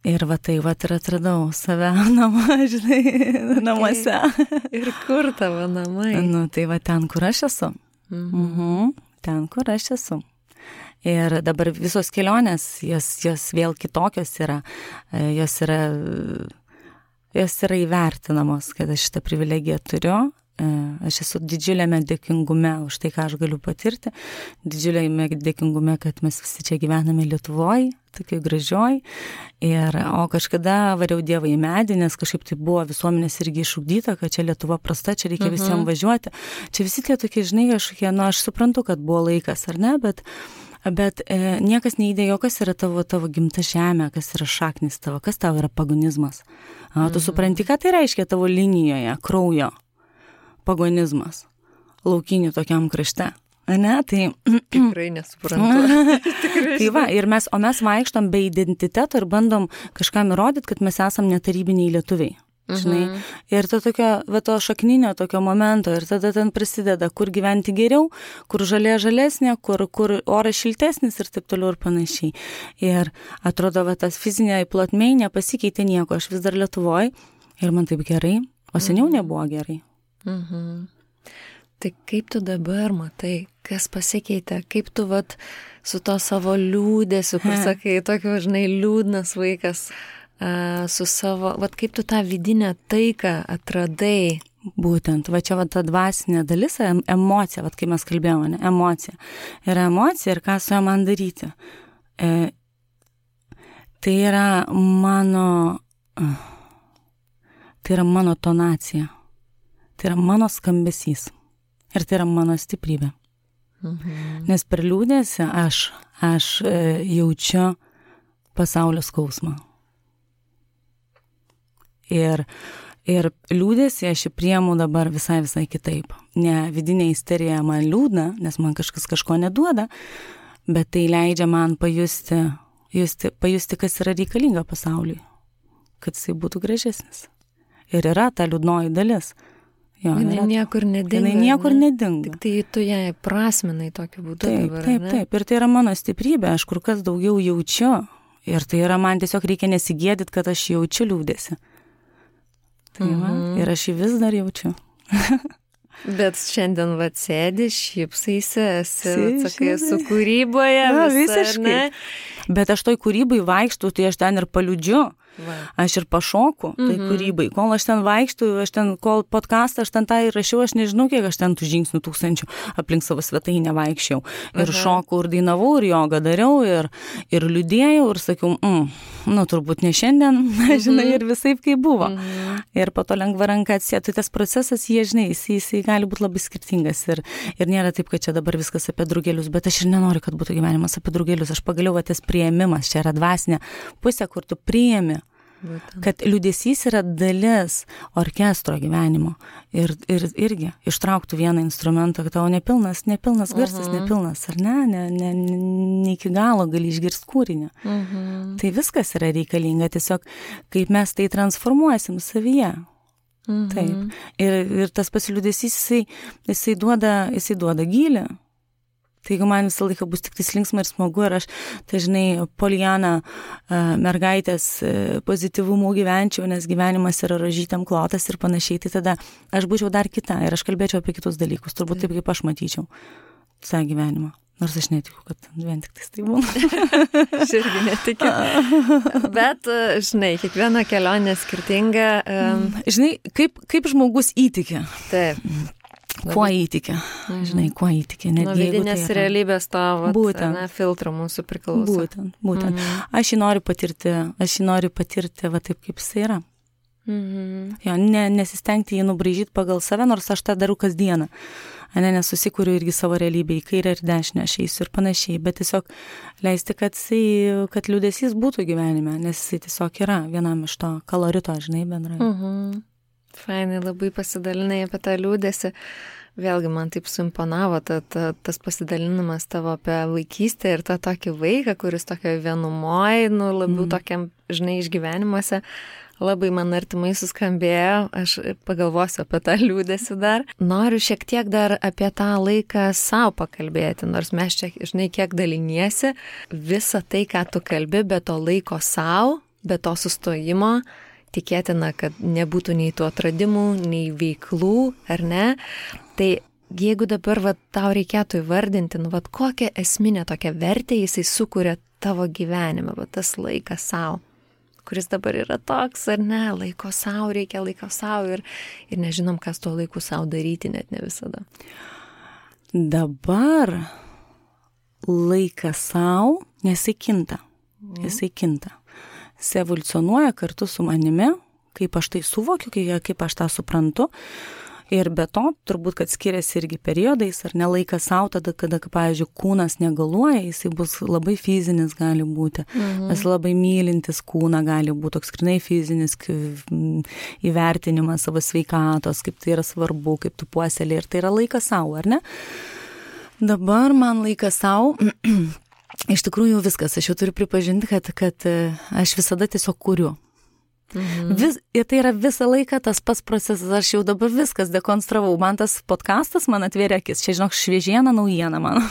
B: atradau save namuose.
A: Ir kur tavo namai?
B: Tai ten, kur aš esu. Ten, kur aš esu. Ir dabar visos kelionės, jos vėl kitokios yra. Jos yra įvertinamos, kad aš šitą privilegiją turiu. Aš esu didžiuliame dėkingume už tai, ką aš galiu patirti, didžiuliame dėkingume, kad mes visi čia gyvename Lietuvoj, tokiai gražioj, o kažkada variau Dievą į medį, nes kažkaip tai buvo visuomenės irgi išugdyta, kad čia Lietuva prasta, čia reikia visiems važiuoti. Čia visi tie tokie, žinai, kažkokie, aš suprantu, kad buvo laikas, ar ne, bet niekas neįdėjo, kas yra tavo gimta žemė, kas yra šaknis tavo, kas tavo yra pagonizmas. Tu supranti, ką tai reiškia tavo linijoje, kraujo. Pagonizmas, laukinių tokiam krašte, ne? Tai
A: tikrai nesuprantu.
B: Tai va, mes vaikštom be identiteto ir bandom kažkam įrodyti, kad mes esam netarybiniai lietuviai, žinai. Ir to šakninio tokio momento, ir tada ten prasideda, kur gyventi geriau, kur žalesnė, kur oras šiltesnis ir taip toliau ir panašiai. Ir atrodo, tas fizinė plotmė nepasikeitė nieko, aš vis dar Lietuvoj ir man taip gerai, o seniau nebuvo gerai.
A: Tai kaip tu dabar matai, kas pasikeitė, kaip tu su to savo liūdėsiu, kur sakai, tokio, žinai, liūdnas vaikas, su savo, kaip tu tą vidinę taiką atradai?
B: Būtent, čia ta dvasinė dalis, emocija, kai mes kalbėjome, emocija. Yra emocija ir ką su ją man daryti. Tai yra mano tonacija. Tai yra mano skambesys. Ir tai yra mano stiprybė. Nes per liūdėsį aš jaučiu pasaulio skausmą. Ir liūdėsį aš priimu dabar visai kitaip. Ne vidinė isterija man liūdna, nes man kažkas kažko neduoda, bet tai leidžia man pajusti, kas yra reikalinga pasauliui, kad jisai būtų gražesnis. Ir yra ta liūdnoji dalis.
A: Jinai niekur nedinga. Tik tai tu ją prasminai tokiu būdu.
B: Taip. Ir tai yra mano stiprybė, aš kur kas daugiau jaučiu. Ir tai yra, man tiesiog reikia nesigėdyti, kad aš jaučiu liūdėsi. Ir aš jį vis dar jaučiu.
A: Bet šiandien sėdi, šypsaisi, sakai, su kūryboje.
B: Visiškai. Bet aš toj kūrybai vaikštų, tai aš ten ir paliudžiu. Aš ir pašoku tai kūrybai. Kol aš ten vaikštų, kol podcastą aš ten tą įrašiau, aš nežinau, kiek aš ten tų žingsnių 1000 aplink savo svetainę vaikščiau. Ir šokau, ir dainavau, ir jogą dariau, ir liūdėjau, ir sakiau, turbūt ne šiandien, žinai, ir visaip kaip buvo. Ir po to lengva ranka atsėtų. Tai tas procesas, jisai gali būti labai skirtingas. Ir nėra taip, kad čia dabar viskas apie drugelius, bet aš ir nenoriu, kad būtų gyvenimas apie drugelius. Aš pagaliau tas priėmimas, čia yra dvasinė pusė, kur tu priėmi. Kad liūdesys yra dalis orkestro gyvenimo ir irgi ištrauktų vieną instrumentą, kad tavo nepilnas garsas, nepilnas, ar ne iki galo gali išgirsti kūrinį. Tai viskas yra reikalinga, tiesiog kaip mes tai transformuosim savyje. Taip. Ir tas pasiliūdesys, jisai duoda gylį. Tai jeigu man visą laiką bus tik tai linksma ir smagu ir aš, tai žinai, Poliana mergaitės pozityvumu gyvenčiau, nes gyvenimas yra rožytėm klotas ir panašiai, tai tada aš būčiau dar kita ir aš kalbėčiau apie kitus dalykus, turbūt taip, kaip aš matyčiau tą gyvenimą. Nors aš netikiu, kad vien tik tai būna.
A: Aš irgi netikiu. Bet, žinai, kiekviena kelionė skirtinga.
B: Žinai, kaip žmogus įtikia.
A: Taip.
B: Kuo įtikia, žinai, kuo įtikia.
A: Nuo vidinės realybės tavo filtrų mūsų priklauso.
B: Būtent. Aš jį noriu patirti va taip, kaip jis yra. Jo, nesistengti jį nubraižyti pagal save, nors aš tą darau kasdieną. Nesusikuriu irgi savo realybę į kairę ir dešinę, aš eisiu ir panašiai, bet tiesiog leisti, kad liūdesys būtų gyvenime, nes jisai tiesiog yra vienam iš to kolorito, žinai, bendrai.
A: Fainai, labai pasidalinai apie tą liūdesį. Vėlgi man taip suimponavo tas pasidalinimas tavo apie vaikystę ir tą tokį vaiką, kuris tokio vienumoj, labiau tokiam, žinai, išgyvenimuose. Labai man artimai suskambėjo, aš pagalvosiu apie tą liūdesį dar. Noriu šiek tiek dar apie tą laiką savo pakalbėti, nors mes čia, žinai, kiek daliniesi, visą tai, ką tu kalbi, be to laiko savo, be to sustojimo, tikėtina, kad nebūtų nei tų atradimų, nei veiklų, ar ne? Tai jeigu dabar tau reikėtų įvardinti, kokią esminę tokią vertę jisai sukuria tavo gyvenime, tas laikas savo, kuris dabar yra toks, ar ne, laiko savo, reikia laiko savo ir nežinom, kas tuo laiku savo daryti, net ne visada.
B: Dabar laikas savo, nes jisai kinta. Jis evoliucionuoja kartu su manimi, kaip aš tai suvokiu, kaip aš tą suprantu. Ir be to, turbūt, kad skiriasi irgi periodais, ar ne laikas savo, tada, kada, pavyzdžiui, kūnas negaluoja, jisai bus labai fizinis gali būti. Mes labai mylintis kūną gali būti, toks grinai fizinis įvertinimas savo sveikatos, kaip tai yra svarbu, kaip tu puoselė. Ir tai yra laikas savo, ar ne? Dabar man laikas savo... Iš tikrųjų viskas, aš jau turiu pripažinti, kad aš visada tiesiog kuriu. Ir tai yra visą laiką tas pats procesas, aš jau dabar viskas dekonstravau. Man tas podcastas man atvėrė akis, čia žinok šviežiena naujiena man.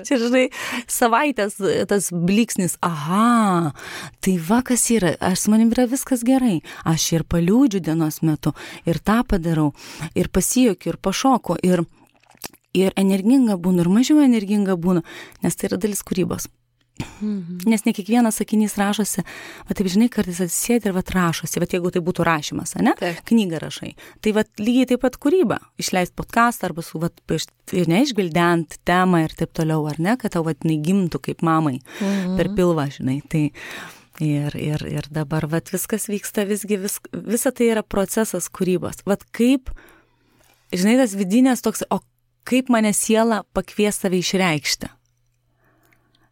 B: Čia žinai, savaitės tas bliksnis, aha, tai kas yra, aš su manim yra viskas gerai. Aš ir paliūdžiu dienos metu, ir tą padarau, ir pasijuokiu, ir pašoku, ir energinga būnu, ir mažiau energinga būnu, nes tai yra dalis kūrybos. Nes ne kiekvienas sakinys rašosi, taip žinai, kartais atsisėdi ir rašosi, jeigu tai būtų rašymas, ne? Knygą rašai. Tai lygiai taip pat kūryba, išleisti podcastą arba neišgvildent temą ir taip toliau, ar ne, kad tau gimtų kaip mamai per pilvą, žinai. Tai ir dabar viskas vyksta, visa tai yra procesas kūrybos. Kaip, žinai, tas vidinės toks, kaip mane siela pakvies save išreikšti.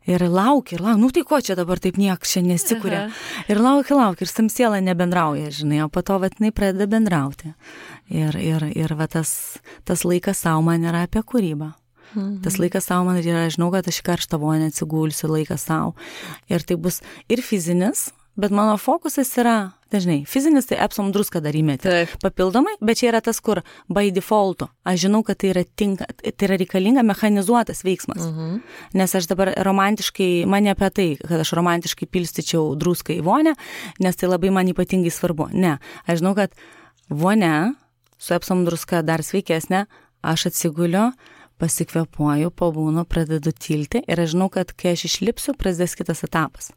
B: Ir laukia, tai ko čia dabar taip niekas čia nesikuria. Ir laukia, ir tam siela nebendrauja, žinai, o po to jinai pradeda bendrauti. Ir tas laikas savo man yra apie kūrybą. Tas laikas savo man yra, žinau, kad aš karštą vonę atsigulsiu, laikas savo. Ir tai bus ir fizinis, bet mano fokusas yra, dažnai, fizinis, tai Epsom druską dar įmeti. Papildomai, bet čia yra tas, kur by defaulto. Aš žinau, kad tai yra reikalinga mechanizuotas veiksmas. Nes aš dabar romantiškai, man ne apie tai, kad aš romantiškai pilstyčiau druską į vonę, nes tai labai man ypatingai svarbu. Ne, aš žinau, kad vonė su epsom druska dar sveikesnė, aš atsiguliu, pasikvėpuoju, pabūnu, pradedu tilti ir aš žinau, kad kai aš išlipsiu, prasidės kitas etapas.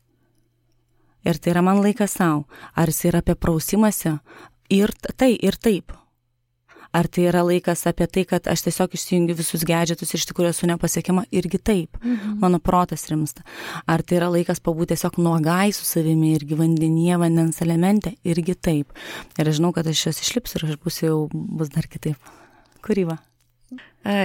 B: Ir tai yra man laikas savo. Ar jis yra apie prausimąsi? Ir taip. Ar tai yra laikas apie tai, kad aš tiesiog išsijungiu visus gadgetus ir iš tikrųjų esu nepasiekiama? Irgi taip. Mano protas rimsta. Ar tai yra laikas pabūti tiesiog nuogai su savimi irgi vandenyje, vandens elemente? Irgi taip. Ir aš žinau, kad aš jos išlipsiu ir aš bus dar kitaip. Kūryba.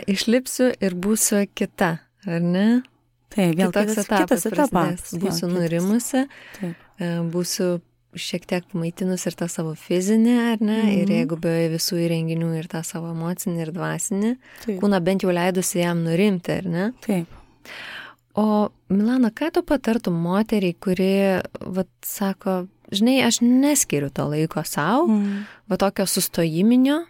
A: Išlipsiu ir būsiu kita, ar ne?
B: Taip, vėl kitas etapas.
A: Būsiu nurimusi, būsiu šiek tiek maitinus ir tą savo fizinį, ar ne? Ir jeigu be visų įrenginių ir tą savo emocinį ir dvasinį, kūną bent jau leidusi jam nurimti, ar ne?
B: Taip.
A: O Milana, ką tu patartum moteriai, kuri, sako, žinai, aš neskiriu to laiko savo, tokio sustojiminio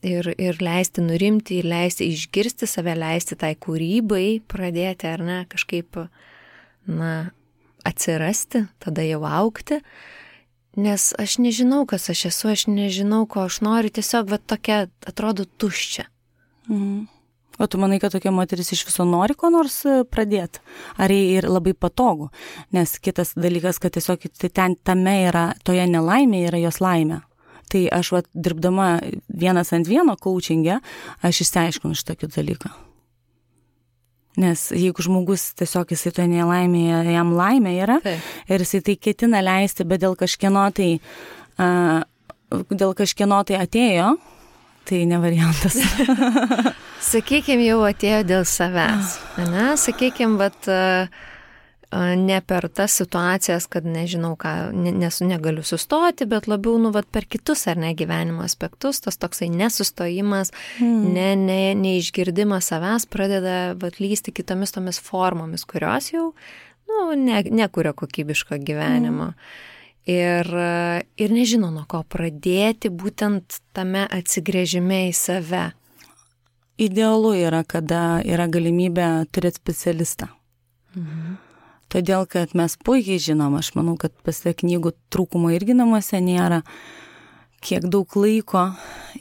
A: ir leisti nurimti, ir leisti išgirsti save, leisti tai kūrybai pradėti, ar ne, kažkaip, atsirasti, tada jau augti. Nes aš nežinau, kas aš esu, aš nežinau, ko aš noriu, tiesiog tokia atrodo tuščia.
B: O tu manai, kad tokia moteris iš viso nori ko nors pradėti? Ar jai ir labai patogu? Nes kitas dalykas, kad tiesiog ten tame yra, toje nelaimėje yra jos laimė. Tai aš dirbdama 1-ant-1 coaching'e, aš išsiaiškinu šitokį dalyką. Nes jeigu žmogus tiesiog jisai to nelaimėje, jam laimė yra, ir jisai tai ketina leisti, bet dėl kažkieno tai atėjo, tai ne variantas.
A: Sakykime, jau atėjo dėl savęs. Ne? Sakykime, ne per tas situacijas, kad nežinau ką, negaliu sustoti, bet labiau, per kitus ar ne gyvenimo aspektus, tas toksai nesustojimas, neišgirdimas savęs pradeda lysti kitomis tomis formomis, kurios jau, nekuria kokybiško gyvenimo. Ir nežino, nuo ko pradėti būtent tame atsigręžime į save.
B: Idealu yra, kada yra galimybė turėti specialistą. Todėl, kad mes puikiai žinom, aš manau, kad pasie knygų trūkumo irgi namuose nėra, kiek daug laiko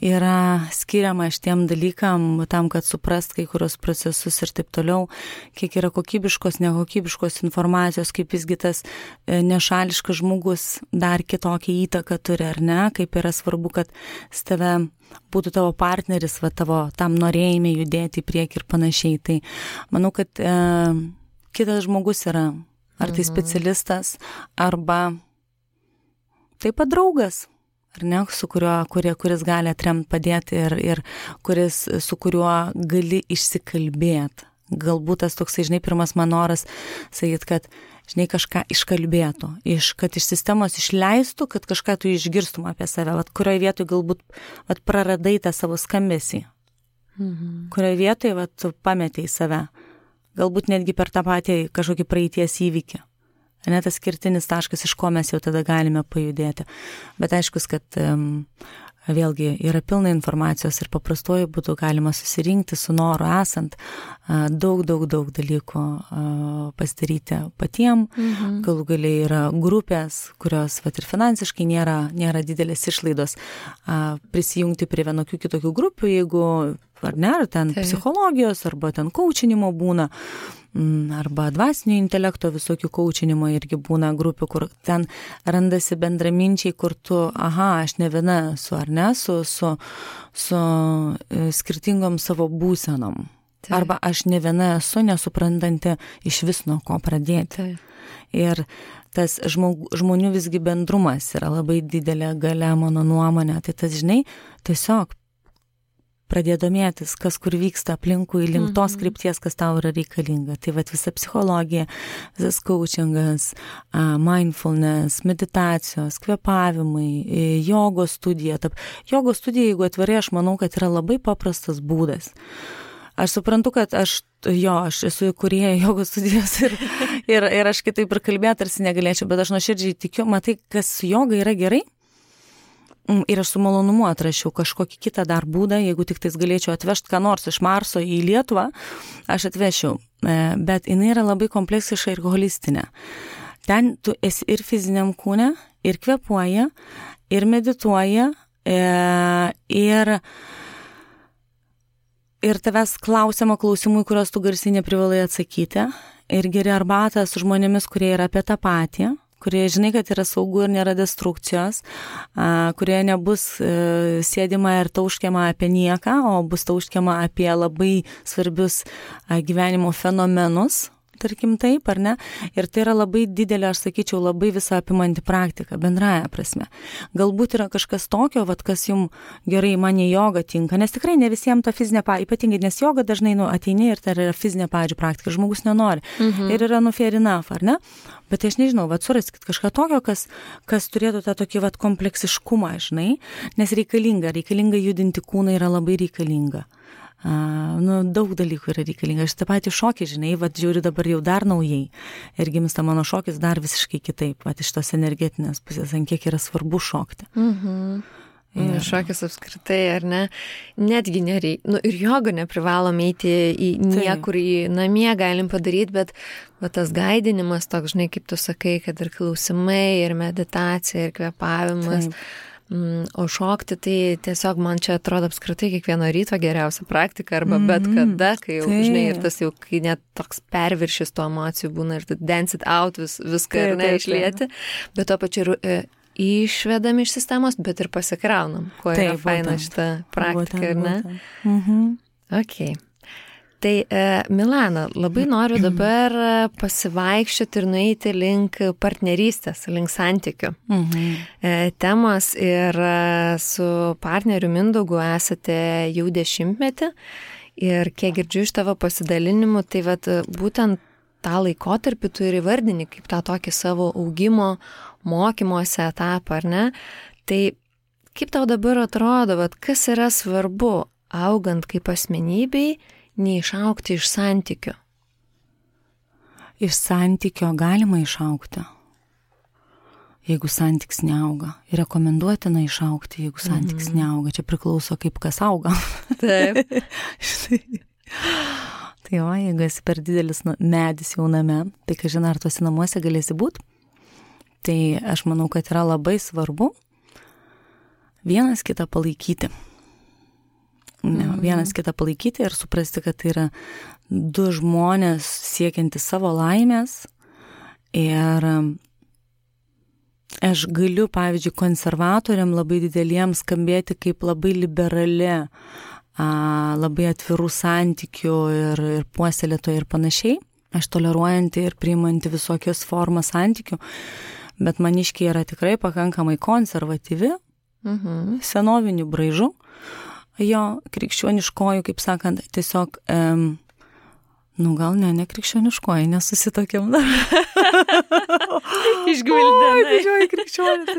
B: yra skiriama šitiem dalykam, tam, kad suprast kai kurios procesus ir taip toliau, kiek yra kokybiškos, nekokybiškos informacijos, kaip visgi tas nešališkas žmogus dar kitokią įtaką turi, ar ne, kaip yra svarbu, kad tave būtų tavo partneris, tavo tam norėjime judėti į priekį ir panašiai. Tai manau, kad kitas žmogus yra, ar tai specialistas, arba taip pat draugas, ar ne, su kuris gali atremti, padėti ir su kuriuo gali išsikalbėti. Galbūt tas toksai, žinai, pirmas man noras sakyti, kad, žinai, kažką iškalbėtų, kad iš sistemos išleistų, kad kažką tu išgirstum apie save, kurioje vietoje galbūt praradai tą savo skambesį, kurioje vietoje tu pametei save. Galbūt netgi per tą patį kažkokį praeities įvykį. Ne tas skirtinis taškas, iš ko mes jau tada galime pajudėti. Bet aiškus, kad vėlgi yra pilna informacijos ir paprastuoju būtų galima susirinkti su noru esant daug dalykų pasidaryti patiem. Galų galiai yra grupės, kurios ir finansiškai nėra didelės išlaidos prisijungti prie vienokių kitokių grupių, jeigu ar ne, ar ten psichologijos, arba ten coachinimo būna, arba dvasinio intelekto visokių coachinimo irgi būna grupių, kur ten randasi bendraminčiai, kur tu, aš ne viena esu, ar ne, su skirtingom savo būsenom. Arba aš ne viena esu, nesuprantanti iš vis nuo ko pradėti. Ir tas žmonių visgi bendrumas yra labai didelė galia, mano nuomonė. Tai tas, žinai, tiesiog pradėti domėtis, kas kur vyksta aplinkui, link tos krypties, kas tau yra reikalinga. Tai visa psichologija, visas coachingas, mindfulness, meditacijos, kvėpavimai, jogos studija. Jogos studija, jeigu atvirai, aš manau, kad yra labai paprastas būdas. Aš suprantu, kad aš esu įkūrėja jogos studijos ir aš kitaip ir kalbėti tarsi negalėčiau, bet aš nuoširdžiai tikiu, matai, kas su joga yra gerai. Ir aš su malonumu atrašiau kažkokį kitą dar būdą, jeigu tik tais galėčiau atvežti ką nors iš Marso į Lietuvą, aš atvešiau. Bet jinai yra labai kompleksiška ir holistinė. Ten tu esi ir fiziniam kūne, ir kvėpuoji, ir medituoji, ir tavęs klausiama klausimų, kuriuos tu garsiai neprivalai atsakyti, ir geri arbatą su žmonėmis, kurie yra apie tą patį, kurie žinai, kad yra saugu ir nėra destrukcijos, kurie nebus sėdima ir tauškiama apie nieką, o bus tauškiama apie labai svarbius gyvenimo fenomenus, tarkim taip, ar ne? Ir tai yra labai didelė, aš sakyčiau, labai visą apimanti praktika, bendraja prasme. Galbūt yra kažkas tokio, kas jums gerai, man į jogą tinka, nes tikrai ne visiems ta fizinė, ypatingai, nes joga dažnai ateini ir tai yra fizinė, pavyzdžiui, praktika, žmogus nenori. Ir yra fair enough, ar ne? Bet aš nežinau, suraskit kažką tokio, kas turėtų tą tokį kompleksiškumą, žinai, nes reikalinga judinti kūną, yra labai reikalinga. Daug dalykų yra reikalinga. Aš tą patį šokį, žinai, žiūriu dabar jau dar naujai. Ir gimsta mano šokis dar visiškai kitaip. Iš tos energetinės pusės, ant kiek yra svarbu šokti.
A: Šokis apskritai, ar ne? Netgi nereikia. Ir jogą neprivalom eiti į niekur, į namie galim padaryti, bet tas gaidinimas toks, žinai, kaip tu sakai, kad ir klausimai, ir meditacija, ir kvėpavimas. O šokti, tai tiesiog man čia atrodo apskritai kiekvieno ryto geriausia praktika arba bet kada, kai jau, žinai, ir tas jau, kai net toks perviršis tų emocijų būna ir tu dance it out viską ir neišlieti, bet to pačiu išvedam iš sistemos, bet ir pasikraunam, kuo yra faina šita praktika, ar ne? Ok. Tai Milana, labai noriu dabar pasivaikščioti ir nueiti link partnerystės, link santykių temos ir su partneriu Mindaugu esate jau 10 metį ir kiek girdžiu iš tavo pasidalinimų, tai būtent tą laikotarpį tu ir įvardini kaip tą tokį savo augimo, mokymosi etapą, ar ne? Tai kaip tau dabar atrodo, kas yra svarbu augant kaip asmenybei, neišaugti iš santykio?
B: Iš santykio galima išaugti, jeigu santykis neauga. Ir rekomenduotina išaugti, jeigu santykis neauga. Čia priklauso, kaip kas auga.
A: Taip.
B: Tai jeigu esi per didelis medis jauname, tai kažin ar tuose namuose galėsi būti. Tai aš manau, kad yra labai svarbu vienas kitą palaikyti. Vienas kitą palaikyti ir suprasti, kad tai yra du žmonės siekiantys savo laimės. Ir aš galiu, pavyzdžiui, konservatoriam labai dideliems skambėti kaip labai liberali, labai atvirų santykių ir puoselėtoja ir panašiai. Aš toleruojanti ir priimanti visokios formas santykių, bet maniškiai yra tikrai pakankamai konservatyvi, senovinių braižų. Jo, krikščioniškoju, kaip sakant, tiesiog, gal ne krikščioniškoju, nesusitokiam dar.
A: Išgvildėm.
B: Didžioji krikščionė.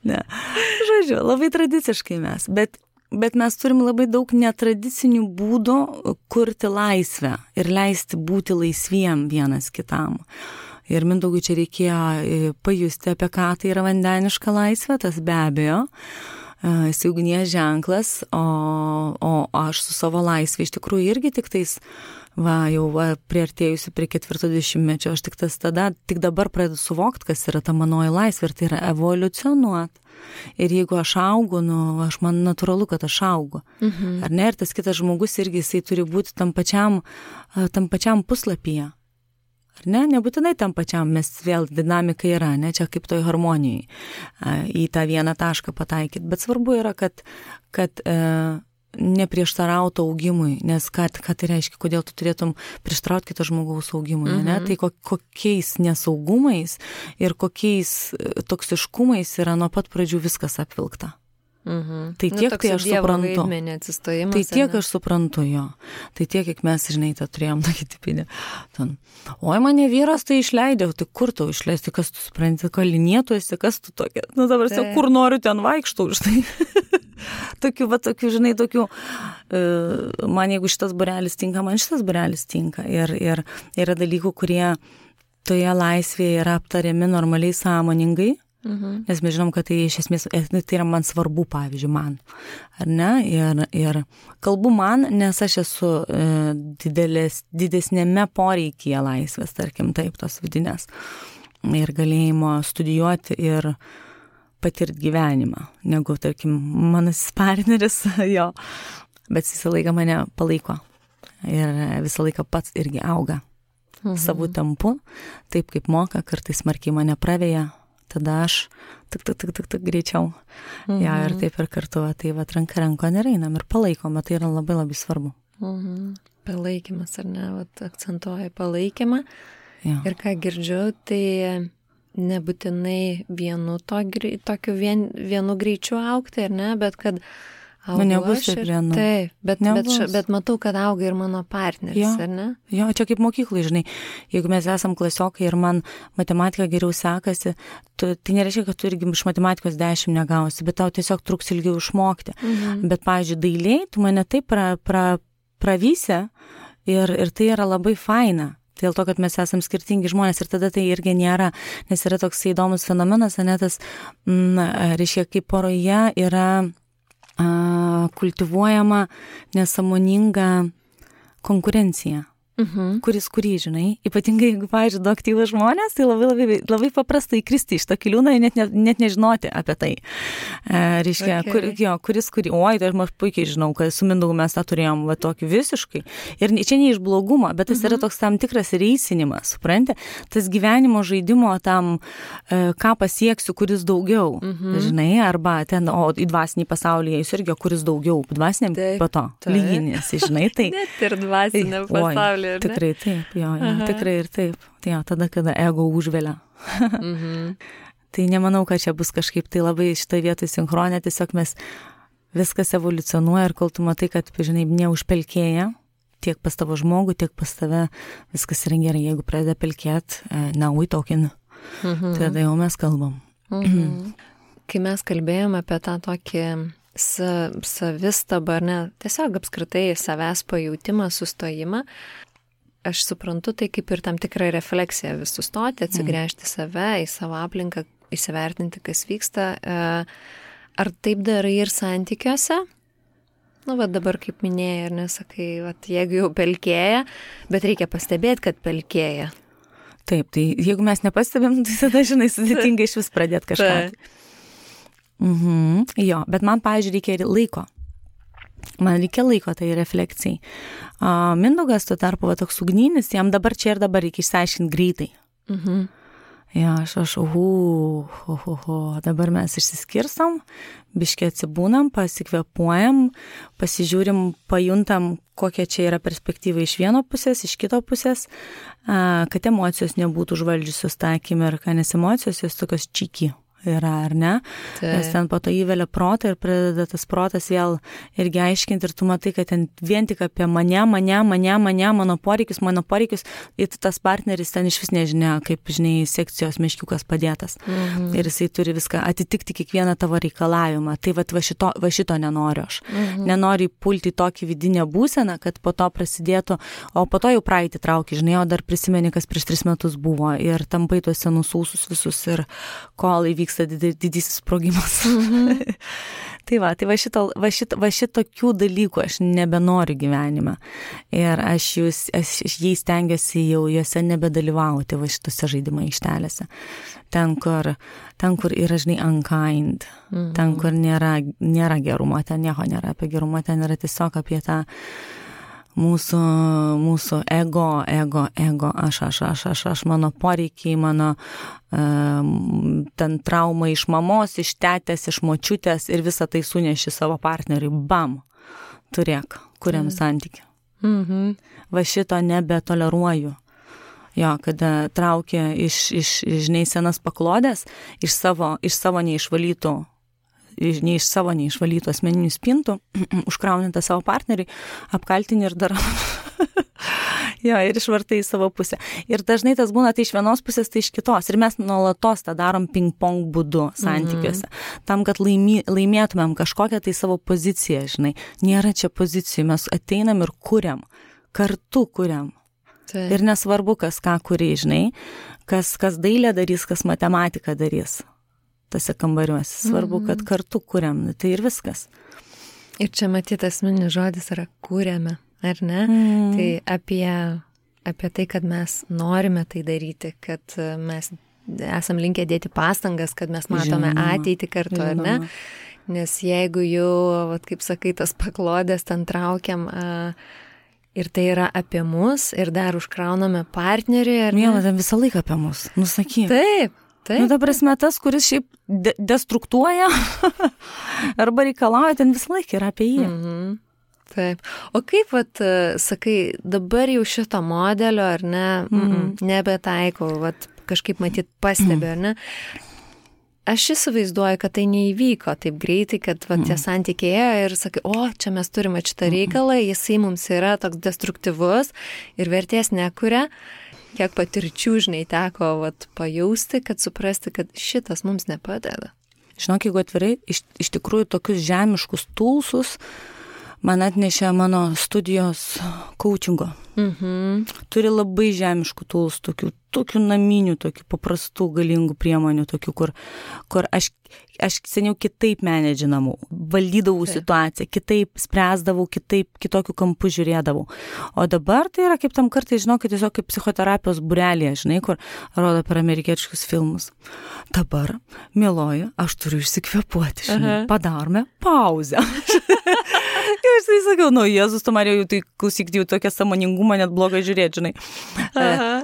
B: Ne. Žodžiu, labai tradiciškai mes, bet mes turim labai daug netradicinių būdų kurti laisvę ir leisti būti laisviem vienas kitam. Ir Mindaugui čia reikėjo pajusti, apie ką tai yra vandeniška laisvė, tas be abejo. Jis ugnies ženklas, o aš su savo laisvė iš tikrųjų irgi tik tais, priartėjusi prie 40-mečio, aš tik dabar pradedu suvokti, kas yra ta manoji laisvė, ir tai yra evoliucionuoti. Ir jeigu aš augu, man natūralu, kad aš augu. Ar ne? Ir tas kitas žmogus irgi jisai turi būti tam pačiam puslapyje. Ar ne? Nebūtinai tam pačiam, mes vėl dinamika yra, ne? Čia kaip toj harmonijai į tą vieną tašką pataikyti. Bet svarbu yra, kad neprieštarautų augimui, nes ką tai reiškia, kodėl tu turėtum prieštarauti kito žmogaus augimui, ne? Tai kokiais nesaugumais ir kokiais toksiškumais yra nuo pat pradžių viskas apvilkta. Tai tiek, tai aš suprantu. Tai tiek aš suprantu jo. Tai tiek, kiek mes, žinai, tą turėjom tokį tipinį. Oi, mane vyras tai išleidė, tai kur tau išleisti, kas tu supranti, kalinėtuosi, kas tu tokia. Dabar kur noriu, ten vaikštau, žinai. Tokių, žinai, man jeigu šitas būrelis tinka, man šitas būrelis tinka. Ir yra dalykų, kurie toje laisvėje yra aptariami normaliai sąmoningai. Nes mes žinom, kad tai iš esmės, tai yra man svarbu, pavyzdžiui, man, ar ne? Ir kalbu man, nes aš esu didesnėme poreikyje laisvės, tarkim, taip, tos vidinės. Ir galėjimo studijuoti ir patirti gyvenimą, negu, tarkim, manasis partneris, jo, bet visą laiką mane palaiko ir visą laiką pats irgi auga savo tempu, taip kaip moka, kartais smarkiai mane praveja, tada aš tik greičiau. Ja, ir taip ir kartu, tai va, ranka rankon ir einam ir palaikom, tai yra labai labai svarbu.
A: Palaikymas, ar ne, vat, akcentuoja palaikymą.
B: Ja.
A: Ir ką girdžiu, tai nebūtinai vienu greičiu augti, ar ne, bet kad augu
B: nebus
A: aš
B: taip vienu.
A: Taip, bet matau, kad auga ir mano partneris, ar ne?
B: Jo, čia kaip mokyklai, žinai, jeigu mes esam klasiokai ir man matematika geriau sekasi, tai nereiškia, kad tu irgi iš matematikos 10 negausi, bet tau tiesiog truks ilgiau išmokti. Bet, pavyzdžiui, dailiai, tu mane taip pravysi ir tai yra labai faina. Dėl to, kad mes esam skirtingi žmonės ir tada tai irgi nėra, nes yra toks įdomus fenomenas, ne tas, reiškia, kaip poroje yra kultivuojama nesąmoninga konkurencija. Kurį, žinai, ypatingai jeigu, pavyzdžiui, du aktyvūs žmonės, tai labai paprasta įkristi iš to kiliūną ir net nežinoti apie tai. Reiškia, kuris, oi, tai aš puikiai žinau, kad su Mindaugu mes tą turėjom va, tokį visiškai. Ir čia ne iš blogumo, bet tas yra toks tam tikras reisinimas, supranti? Tas gyvenimo žaidimo tam, ką pasieksiu, kuris daugiau, žinai, arba ten, o į dvasinį pasaulį jis irgi, kuris daugiau, dvasiniam po to, lyginės, žinai, tai.
A: Net ir dvasiniam pasaulyje.
B: Tikrai taip, jo, tikrai ir taip. Jo, tada, kada ego užvelia. Tai nemanau, kad čia bus kažkaip tai labai šitą vietą sinchronė, tiesiog mes viskas evoliucionuoja ir kol tu matai, kad, žinai, neužpelkėja, tiek pas tavo žmogų, tiek pas tave, viskas yra gerai, jeigu pradeda pelkėt, tokin, tada jau mes kalbam.
A: Kai mes kalbėjome apie tą tokį savistabą, ar ne, tiesiog apskritai savęs pajautimą, sustojimą, aš suprantu, tai kaip ir tam tikra refleksija vis sustoti, atsigręžti save, į savo aplinką, įsivertinti, kas vyksta. Ar taip darai ir santykiuose? Va dabar, kaip minėjai, ar nesakai, jeigu jau pelkėja, bet reikia pastebėti, kad pelkėja.
B: Taip, tai jeigu mes nepastebėm, tai tada, žinai, sudėtinga iš vis pradėti kažką. Jo, bet man, pavyzdžiui, reikia laiko. Man reikia laiko tai refleksijai. Mindaugas tuo tarpu toks ugninis, jam dabar čia ir dabar reikia išsiaiškinti greitai. Ja, aš, dabar mes išsiskirstam, biškiai atsibūnam, pasikvėpuojam, pasižiūrim, pajuntam, kokia čia yra perspektyva iš vieno pusės, iš kito pusės, kad emocijos nebūtų užvaldžiusios tą akimirką, nes emocijos jos tokios čiki yra, ar ne? Nes ten po to įvelia protą ir pradeda tas protas vėl irgi aiškinti ir tu matai, kad ten vien tik apie mano poreikius, ir tas partneris ten iš vis nežinia, kaip, žinai, sekcijos meškiukas padėtas. Ir jisai turi viską atitikti kiekvieną tavo reikalavimą. Tai va šito nenoriu aš. Nenoriu pulti tokį vidinę būseną, kad po to prasidėtų, o po to jau praeitį trauki, žinai, o dar prisimeni, kas prieš 3 metus buvo ir tampai tuos senus ūsus visus ir kol įvyks didysis sprogimas. Tai va šitokių dalykų aš nebenoriu gyvenime. Ir aš jais stengiuosi jau juose nebedalyvauti va šitose žaidimo aikštelėse. Ten, kur yra, žinai, unkind. Ten, kur nėra gerumo, ten nieko nėra apie gerumą, ten yra tiesiog apie tą mūsų ego, aš, mano poreikiai, mano ten trauma iš mamos, iš tetės, iš močiutės ir visą tai suneši savo partneriui. Bam! Turėk, kuriam santykį. Va šito nebetoleruoju. Jo, kada traukia iš žinai, senas paklodės, iš savo neišvalytų asmeninių spintų, užkraunintą savo partneriui, apkaltinį ir dar jo, ir išvartai į savo pusę. Ir dažnai tas būna tai iš vienos pusės, tai iš kitos. Ir mes nuolatos tą darom ping-pong būdu santykiuose. Tam, kad laimėtumėm kažkokią tai savo poziciją, žinai. Nėra čia pozicijų, mes ateinam ir kuriam. Kartu kuriam. Ir nesvarbu, kas ką kuri, žinai. Kas dailę darys, kas matematiką darys. Tose kambariuose. Svarbu, kad kartu kuriam, tai ir viskas.
A: Ir čia matyti asmeninis žodis yra kuriame, ar ne? Tai apie tai, kad mes norime tai daryti, kad mes esam linkę dėti pastangas, kad mes matome ateitį kartu, ar ne? Nes jeigu jau, vat, kaip sakai, tas paklodės ten traukiam ir tai yra apie mus ir dar užkrauname partnerį, ar ne?
B: Miela, ten visą laiką apie mus, nusakyk.
A: Taip.
B: Nu, ta prasme, tas, kuris šiaip destruktuoja arba reikalauja, ten visą laiką yra apie jį.
A: Taip. O kaip, vat, sakai, dabar jau šito modelio, ar ne, nebetaikau, vat, kažkaip matyt pastebiu, ar ne? Aš įsivaizduoju, kad tai neįvyko taip greitai, kad vat, tie santykiai ir sakai, o, čia mes turime šitą reikalą, jisai mums yra toks destruktyvus ir vertės nekuria. Kiek patirčių, žinai, teko vat, pajausti, kad suprasti, kad šitas mums nepadeda.
B: Žinok, jeigu atvirai, iš tikrųjų tokius žemiškus tulsus man atnešė mano studijos coachingo. Turi labai žemiškų tools, tokių naminių, tokių paprastų, galingų priemonių, tokių, kur aš seniau kitaip menedžinamau, valdydavau situaciją, kitaip spręsdavau, kitokių kampų žiūrėdavau. O dabar tai yra kaip tam kartai, žinau, kad tiesiog kaip psichoterapijos būrelėje, žinai, kur rodo per amerikietiškus filmus. Dabar, mieloji, aš turiu išsikvėpuoti, žinai, padarome pauzę. Aš tai sakiau, Jėzus, tu Marija, jau tai klausyk, jau tokia sąmoningumą net blogai žiūrėti, žinai.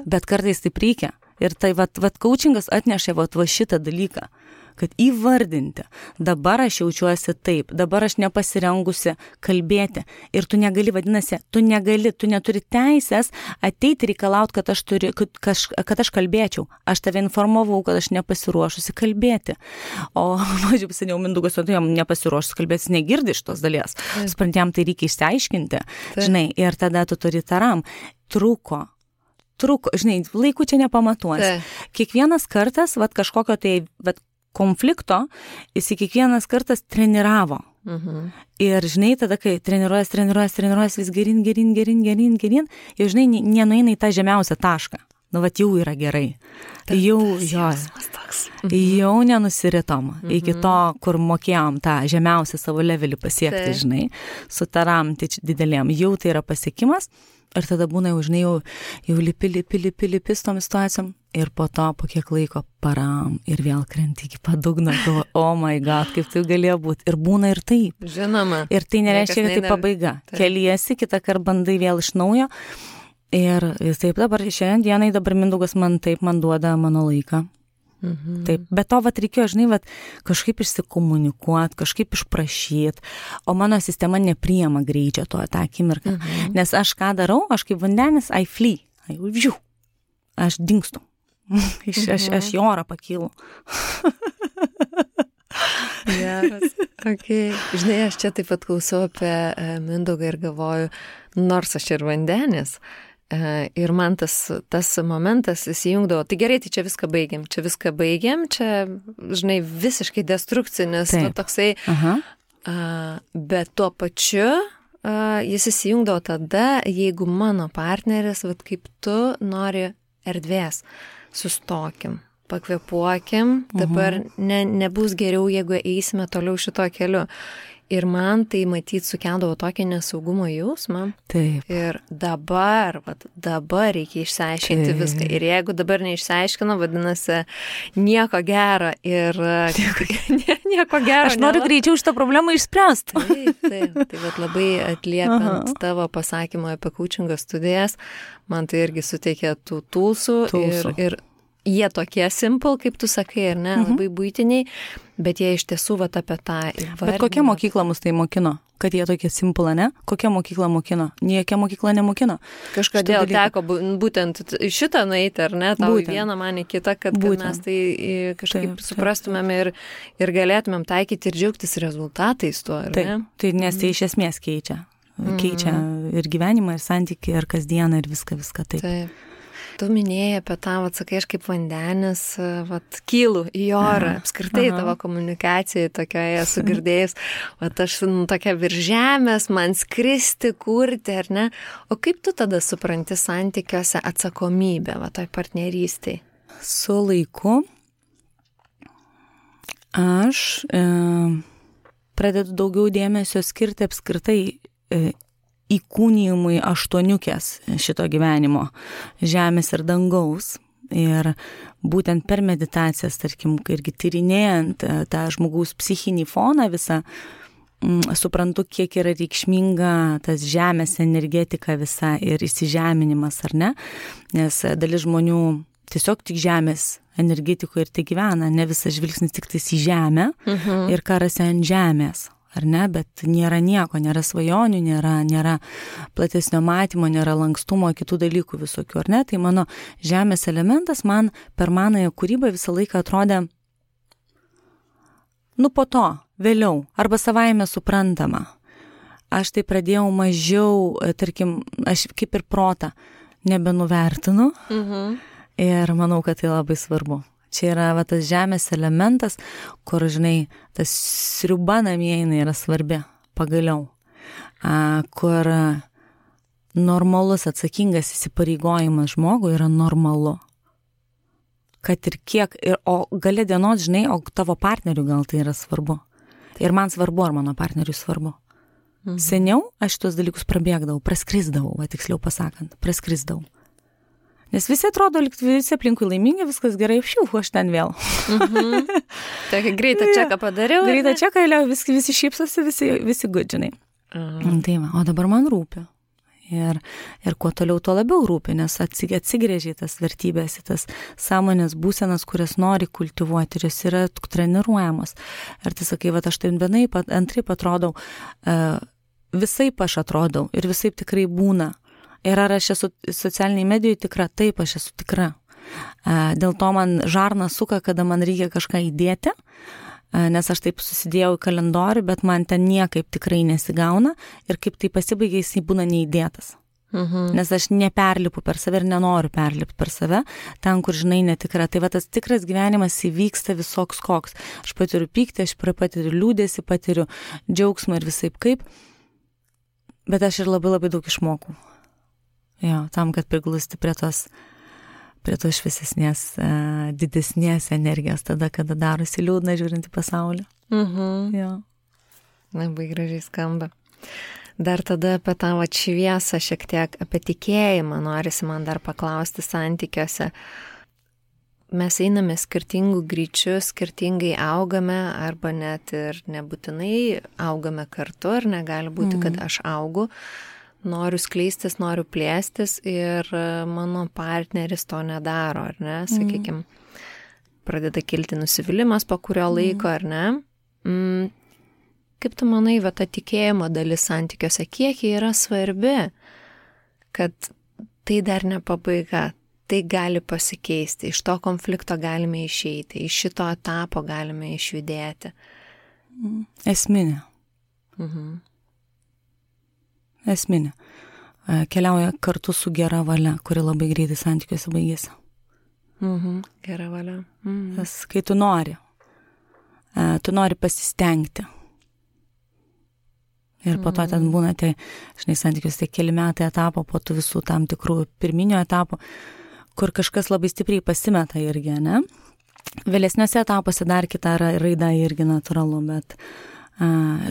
B: Bet kartais taip reikia. Ir tai, coachingas atnešė va šitą dalyką, kad įvardinti, dabar aš jaučiuosi taip, dabar aš nepasirengusi kalbėti. Ir tu negali, vadinasi, tu neturi teisės ateiti reikalauti, kad aš kalbėčiau. Aš tave informavau, kad aš nepasiruošusi kalbėti. O, mažiau seniau Mindaugas, tu jam nepasiruošusi kalbėti, negirdi iš tos dalies. Suprantėm, tai reikia išsiaiškinti. Žinai, ir tada tu turi taram. Truko, žinai, laikų čia nepamatuosi. Kiekvienas kartas, kažkokio tai, konflikto, jis kiekvienas kartas treniravo. Ir, žinai, tada, kai treniruojas vis gerin, jau, žinai, nenueina į tą žemiausią tašką. Jau yra gerai. Jau nenusiritom iki to, kur mokėjom tą žemiausią savo levelį pasiekti, žinai, su taram didelėm. Jau tai yra pasiekimas. Ir tada būna, žinai, jau lipi su tom situacijom. Ir po to, po kiek laiko param ir vėl krenti iki padugno. Oh my God, kaip tai galėjo būti. Ir būna ir taip.
A: Žinoma.
B: Ir tai nereiškia, kad tai pabaiga. Keliesi, kitą kartą bandai vėl iš naujo. Ir taip dabar, šiandien dienai dabar Mindaugas man duoda mano laiką. Taip, bet to reikėjo, žinai, kažkaip išsikomunikuoti, kažkaip išprašyti, o mano sistema nepriima greičio tą akimirką. Nes aš ką darau, aš kaip vandenis, I flee, aš dingstu, aš į orą pakylu.
A: Geras, okay. Žinai, aš čia taip pat klausau apie Mindaugą ir galvoju, nors aš ir vandenis, ir man tas momentas įsijungdavo, tai gerai, tai čia viską baigiam, čia, žinai, visiškai destrukcinis, toksai, bet tuo pačiu jis įsijungdavo tada, jeigu mano partneris, kaip tu nori erdvės, sustokim, pakvėpuokim, dabar nebus geriau, jeigu eisime toliau šito keliu. Ir man tai matyt sukeldavo tokį nesaugumo jausmą.
B: Taip.
A: Ir dabar reikia išsiaiškinti viską. Ir jeigu dabar neišsiaiškino, vadinasi, nieko gero. Ir nieko gero.
B: Aš noriu greičiau šitą problemą išspręsti.
A: Taip. Tai labai atliepiant tavo pasakymą apie coachingo studijas, man tai irgi suteikė tų tulsų. Ir jie tokie simple, kaip tu sakai, ar ne, labai buitiniai, bet jie iš tiesų apie tą įvardinimą.
B: Bet kokia mokykla mus tai mokino? Kad jie tokie simple, ne? Kokia mokykla mokino? Niekia mokykla nemokino.
A: Kažkodėl teko būtent šitą nueiti, ar ne? Tau į vieną, man į kitą, kad mes tai kažkaip suprastumėm ir galėtumėm taikyti ir džiaugtis rezultatais tuo, ar ne?
B: Tai nes tai iš esmės keičia. Keičia ir gyvenimą, ir santykį, ir kasdieną, ir viską taip.
A: Tu minėjai apie tą, sakai, aš kaip vandenis, kylu į orą, apskritai tavo komunikacijai tokioje sugirdėjus, aš tokia virš žemės, man skristi, kurti, ar ne? O kaip tu tada supranti santykiuose atsakomybę, toj partnerystėj?
B: Su laiku aš pradedu daugiau dėmesio skirti apskritai įkūnijimui aštuoniukės šito gyvenimo, žemės ir dangaus. Ir būtent per meditacijas, tarkim, irgi tyrinėjant tą žmogaus psichinį foną visą, suprantu, kiek yra reikšminga tas žemės energetika visa ir įsižeminimas, ar ne? Nes dalis žmonių tiesiog tik žemės energetikoje ir tai gyvena, ne visas žvilgsnis tik tais į žemę ir karasi ant žemės, ar ne? Bet nėra nieko, nėra svajonių, nėra platesnio matymo, nėra lankstumo, kitų dalykų visokių, ar ne? Tai mano žemės elementas man per manąją kūrybą visą laiką atrodė, po to, vėliau, arba savaime suprantama. Aš tai pradėjau mažiau, tarkim, aš kaip ir protą nebenuvertinu ir manau, kad tai labai svarbu. Čia yra tas žemės elementas, kur, žinai, tas sriuba namie yra svarbi, pagaliau, kur normalus atsakingas įsipareigojimas žmogui yra normalu. Kad ir kiek, o gale dienos, žinai, o tavo partneriui gal tai yra svarbu. Ir man svarbu, ar mano partneriui svarbu. Seniau aš šitos dalykus prabėgdavau, praskrisdavau, tiksliau pasakant, praskrisdavau. Nes visi atrodo, visi aplinkui laimingi, viskas gerai, aš ten vėl.
A: Tokį greitą čeką padariau.
B: Greitą čeką, visi šypsosi, visi gudžinai. Tai va, o dabar man rūpi. Ir kuo toliau, tuo labiau rūpi, nes atsigrėžė tas vertybės, tas sąmonės būsenas, kurias nori kultivuoti ir jos yra treniruojamos. Ir tai sakai, aš taip vienaip, antraip atrodau, visaip aš atrodau ir visaip tikrai būna. Ir ar aš esu socialiniai medijoje tikra? Taip, aš esu tikra. Dėl to man žarna suka, kada man reikia kažką įdėti, nes aš taip susidėjau į kalendorių, bet man ten niekaip tikrai nesigauna ir kaip tai pasibaigia, jis būna neįdėtas. Nes aš neperlipu per save ir nenoriu perlipti per save, ten, kur, žinai, netikra. Tai tas tikras gyvenimas įvyksta visoks koks. Aš patiriu pyktį, aš patiriu liūdėsį, patiriu džiaugsmą ir visaip kaip, bet aš ir labai labai daug išmokau. Jo, tam, kad priglusti prie tos šviesesnės, didesnės energijos tada, kada darosi liūdna žiūrint į pasaulį. Jo.
A: Labai gražiai skamba. Dar tada apie tą šviesą šiek tiek, apie tikėjimą norisi man dar paklausti santykiuose. Mes einame skirtingų greičių, skirtingai augame, arba net ir nebūtinai augame kartu, ar negali būti, kad aš augu. Noriu skleistis, noriu plėstis ir mano partneris to nedaro, ar ne, sakykime, pradeda kilti nusivylimas po kurio laiko, ar ne. Kaip tu manai, ta tikėjimo dalis santykiuose, kiek jie yra svarbi, kad tai dar ne pabaiga, tai gali pasikeisti, iš to konflikto galime išeiti, iš šito etapo galime išjudėti?
B: Esminė. Esminė. Keliauja kartu su gera valia, kuri labai greitai santykiuose baigėsi.
A: Gera valia.
B: Tas, kai tu nori pasistengti. Ir po to ten būna, žinai, santykiuose keli metai etapo, po tų visų tam tikrų pirminio etapų, kur kažkas labai stipriai pasimeta irgi, ne? Vėlesniuose etapuose dar kita raida irgi natūralu, bet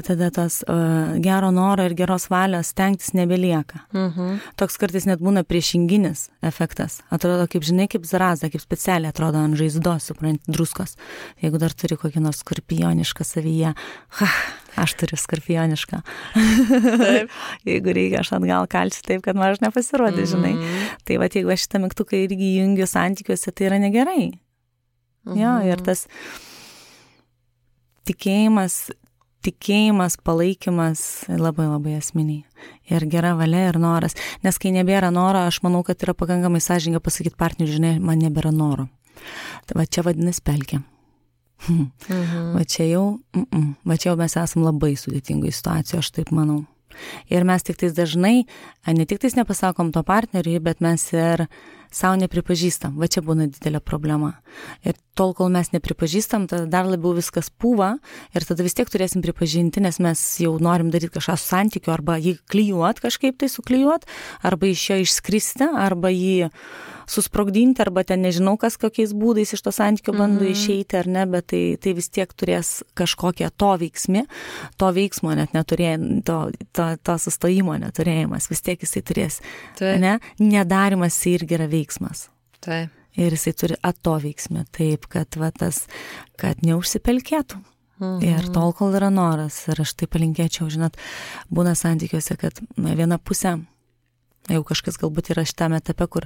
B: tada tas gero noro ir geros valios stengtis nebelieka. Toks kartais net būna priešinginis efektas. Atrodo, kaip, žinai, kaip zaraza, kaip specialiai atrodo ant žaizdos, suprant, druskos. Jeigu dar turi kokį nors skorpionišką savyje, aš turiu skorpionišką. Jeigu reikia, aš atgal kalsiu taip, kad man aš nepasirodė, žinai. Tai jeigu aš šitą mygtuką irgi jungiu santykiuose, tai yra negerai. Jo, ir tas tikėjimas, palaikymas labai labai esminiai. Ir gera valia ir noras. Nes kai nebėra noro, aš manau, kad yra pakankamai sąžininga pasakyti partneriui, žinai, man nebėra noro. Tai čia vadinasi pelkė. Va čia jau mes esam labai sudėtingoje situacijoje, aš taip manau. Ir mes tik tais dažnai, ne tik tais nepasakom to partneriui, bet mes ir savo nepripažįstam. Va čia būna didelė problema. Ir tol, kol mes nepripažįstam, tada dar labiau viskas pūva ir tada vis tiek turėsim pripažinti, nes mes jau norim daryti kažką su santykiu, arba jį klijuot, kažkaip tai suklijuot, arba iš jo išskristi, arba jį susprogdinti, arba ten nežinau kas kokiais būdais iš to santykio bando išeiti, ar ne, bet tai vis tiek turės kažkokią to veiksmo net neturėjai, to sustojimo neturėjimas, vis tiek jisai turės, ne? Nedarimas irgi yra veiksmas.
A: Tai.
B: Ir jisai turi atoveiksmį, taip, kad neužsipelkėtų. Ir tol, kol yra noras. Ir aš tai palinkėčiau, žinot, būna santykiuose, kad viena pusė, jau kažkas galbūt yra šitame etape, kur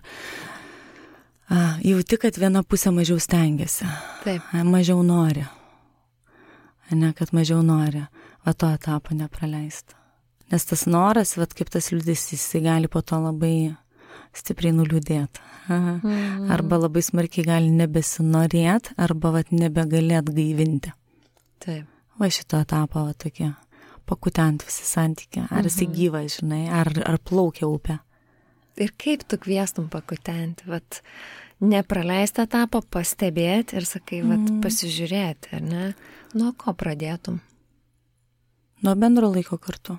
B: jauti, kad viena pusė mažiau stengiasi.
A: Taip.
B: Mažiau nori. Kad mažiau nori. Va to etapo nepraleisti. Nes tas noras, kaip tas liūdesys, jisai gali po to labai stipriai nuliūdėti. Arba labai smarkiai gali nebesinorėti, arba nebegalėt gaivinti.
A: Taip.
B: Va šito etapo tokie, pakutent visi santykiai. Ar jisai gyvas, žinai, ar plaukia upė.
A: Ir kaip tu kviestum pakutenti, nepraleisti etapą, pastebėti ir sakai, pasižiūrėti, ar ne? Nuo ko pradėtum?
B: Nuo bendro laiko kartu.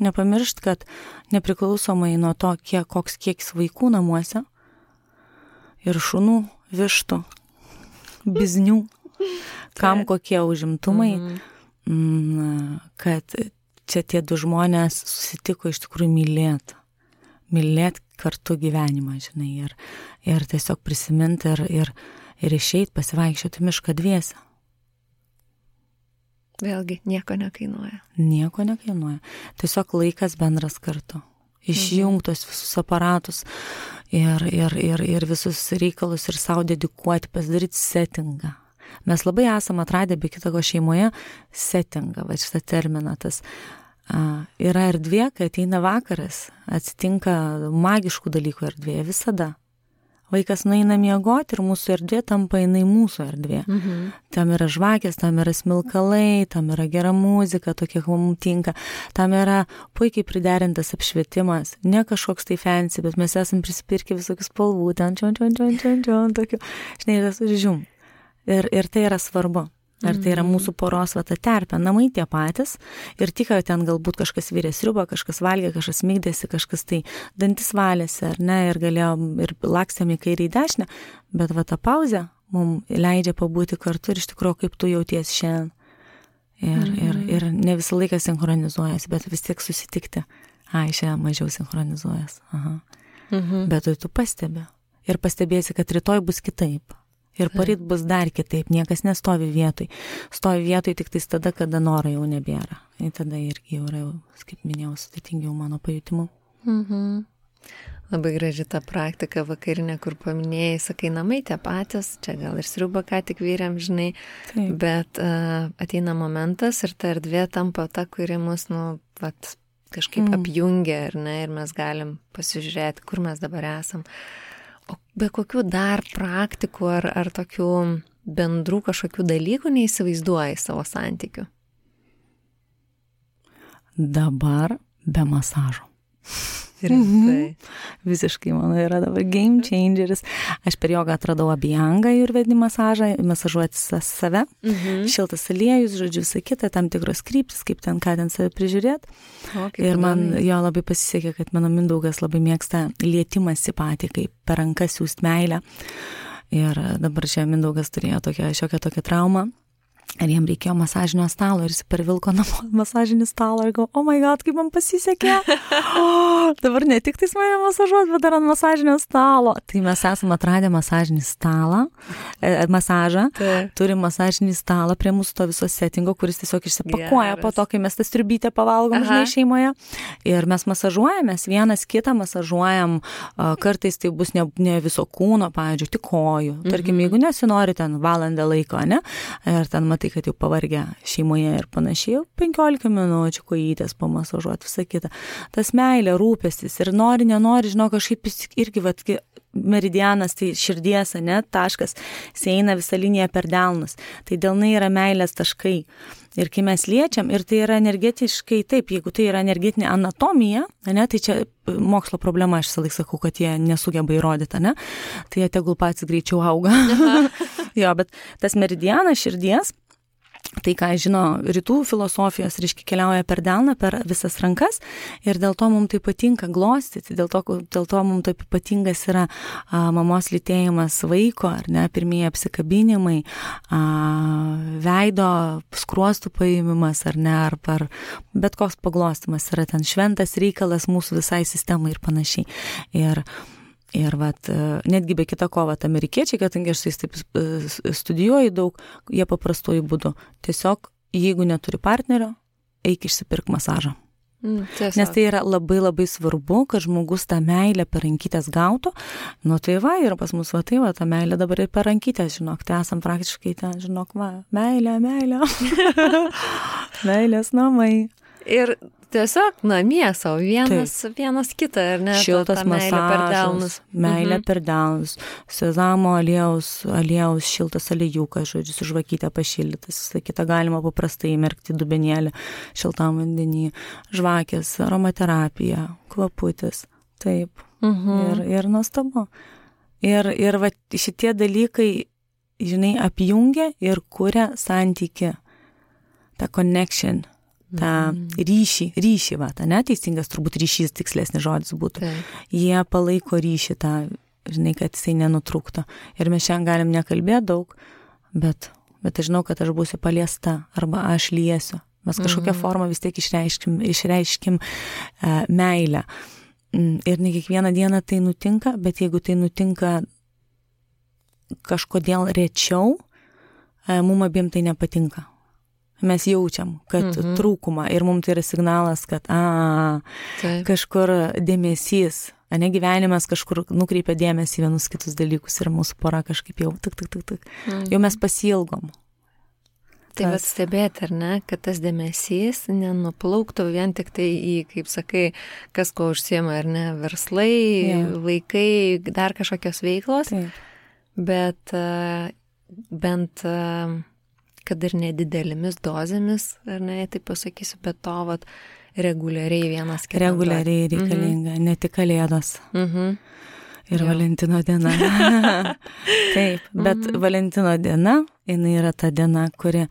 B: Nepamiršt, kad nepriklausomai nuo to, koks kiekis vaikų namuose ir šunų, vištų, biznių, kam kokie užimtumai, kad čia tie du žmonės susitiko iš tikrųjų mylėti kartu gyvenimą, žinai, ir tiesiog prisiminti ir išeit pasivaikščioti mišką dviese.
A: Vėlgi, nieko nekainuoja.
B: Nieko nekainuoja. Tiesiog laikas bendras kartu. Išjungtos visus aparatus ir visus reikalus ir savo dedikuoti, pasidaryti settingą. Mes labai esam atradę be kitako šeimoje settingą, šitą terminą. Tas yra erdvė, kai ateina vakaras, atsitinka magiškų dalykų erdvėje visada. Vaikas nueina miegoti ir mūsų erdvė tampa jinai mūsų erdvė. Tam yra žvakės, tam yra smilkalai, tam yra gera muzika, tokia, kaip mums tinka. Tam yra puikiai priderintas apšvietimas. Ne kažkoks tai fancy, bet mes esam prisipirkę visokių spalvų, ten tokių. Žinai, tas žiūm. Ir tai yra svarbu. Ar tai yra mūsų poros ta terpė, namai tie patys ir tik, kad ten galbūt kažkas virė sriubą, kažkas valgė, kažkas migdėsi, kažkas tai dantis valėsi, ar ne, ir galėjom, ir lakstėm į kairę į dešinę, bet ta pauzė mums leidžia pabūti kartu ir iš tikrųjų, kaip tu jauties šiandien. Ir ne visą laiką sinchronizuojas, bet vis tiek susitikti. Šiandien mažiau sinchronizuojas. Bet tu pastebi. Ir pastebėsi, kad rytoj bus kitaip. Ir poryt bus dar kitaip, niekas nestovi vietoj. Stovi vietoj tik tais tada, kada noro jau nebėra. Ir tada irgi jau yra, kaip minėjau, sudėtingiau mano pajutimu.
A: Labai graži ta praktika vakarinė, kur paminėjai, sakai, namai tie patys, čia gal ir sriubą ką tik vyrėm, žinai, taip. Bet ateina momentas ir ta erdvė tampa ta, kuri mus, kažkaip apjungia, ar ne, ir mes galim pasižiūrėti, kur mes dabar esam. O be kokių dar praktikų ar tokių bendrų kažkokių dalykų neįsivaizduoji savo santykių?
B: Dabar be masažo.
A: Rimtai.
B: Visiškai, mano, yra dabar game changeris. Aš per jogą atradau abhyangą ajurvedinį masažą, masažuoti save, šiltas aliejus, žodžiu, visą kitą, tam tikros kryptis, kaip ten, ką ten save prižiūrėti. Ir man jo labai pasisekė, kad mano Mindaugas labai mėgsta lietimąsi patį, kaip per rankas siūst meilę. Ir dabar čia Mindaugas turėjo šiokią tokią traumą. Ir jam reikėjo masažinio stalo ir jis pervilko namo masažinį stalą ir galvo, oh my god, kaip man pasisekė. Dabar ne tik tais mane masažuot, bet dar ant masažinio stalo. Tai mes esame atradę masažinį stalą, masažą, turim masažinį stalą prie mūsų to viso settingo, kuris tiesiog išsipakuoja po to, kai mes tą striubytę pavalgom, žinai, šeimoje. Ir mes masažuojamės, vienas kitą masažuojam, kartais tai bus ne viso kūno, pavyzdžiui, tik kojų. Tarkim, jeigu nesinori ten valandą laiko, ne? Ir ten tai, kad jau pavargę šeimoje ir panašiai, 15 minučių kojytės pamasažuoti, visą kitą. Tas meilė, rūpestis ir nori, nenori, žinau, kažkaip irgi, meridianas, tai širdies, ne, taškas, eina visą liniją per delnus. Tai delnai yra meilės taškai. Ir kai mes liečiam, ir tai yra energetiškai, taip, jeigu tai yra energetinė anatomija, ne, tai čia mokslo problema, aš visą laiką sakau, kad jie nesugeba įrodyti, ne, tai jie tegul patys greičiau auga. Jo, bet tas meridianas širdies, tai, ką žino rytų filosofijos, reiškia, keliauja per delną, per visas rankas ir dėl to mums tai patinka glostyti, dėl to mums taip patingas yra mamos lytėjimas vaiko, ar ne, pirmieji apsikabinimai, veido skruostų paėmimas, ar ne, ar bet koks paglostimas yra ten šventas reikalas mūsų visai sistemai ir panašiai. Ir Ir netgi be kita ko, amerikiečiai, kadangi aš taip studijuoju daug, jie paprastuoju būdu. Tiesiog, jeigu neturi partnerio, eik išsipirk masažą. Nes tai yra labai labai svarbu, kad žmogus tą meilę per rankytės gautų. Nu tai ir pas mus ta meilė dabar ir per rankytės, žinok, tai esam praktiškai ten, žinok, meilė. Meilės namai.
A: Ir tiesiog namie savo vienas kitą, ar ne?
B: Šiltas masažas, meilė per delnus, sezamo aliejaus šiltas aliejūkas, žodžiu, su žvakytė pašildytas, visą kitą galima paprastai įmerkti dubenėlį šiltam vandenį, žvakės, aromaterapija, kvaputis, taip, ir nuostabu. Ir šitie dalykai, žinai, apjungia ir kuria santykį, tą connection, tą ryšį, neteisingas turbūt ryšys, tikslesnis žodis būtų. Jie palaiko ryšį tą, žinai, kad jisai nenutrūktų. Ir mes šiandien galim nekalbėti daug, bet aš žinau, kad aš būsiu paliesta arba aš liesiu. Mes kažkokią formą vis tiek išreiškim meilę. Ir ne kiekvieną dieną tai nutinka, bet jeigu tai nutinka kažkodėl rečiau, mum abiem tai nepatinka. Mes jaučiam, kad trūkumą ir mums tai yra signalas, kad kažkur dėmesys, gyvenimas kažkur nukreipia dėmesį vienus kitus dalykus ir mūsų pora kažkaip jau jau mes pasiilgom.
A: Tai stebėti, ar ne, kad tas dėmesys nenuplauktų vien tik tai į, kaip sakai, kas ko užsiema, ar ne, verslai, vaikai, dar kažkokios veiklos, bet bent kad ir nedidelėmis dozėmis, ar ne, taip pasakysiu, bet to reguliariai vienas kitas.
B: Reguliariai reikalinga, ne tik Kalėdos. Ir Valentino diena. Taip, bet Valentino diena, jinai yra ta diena, kuri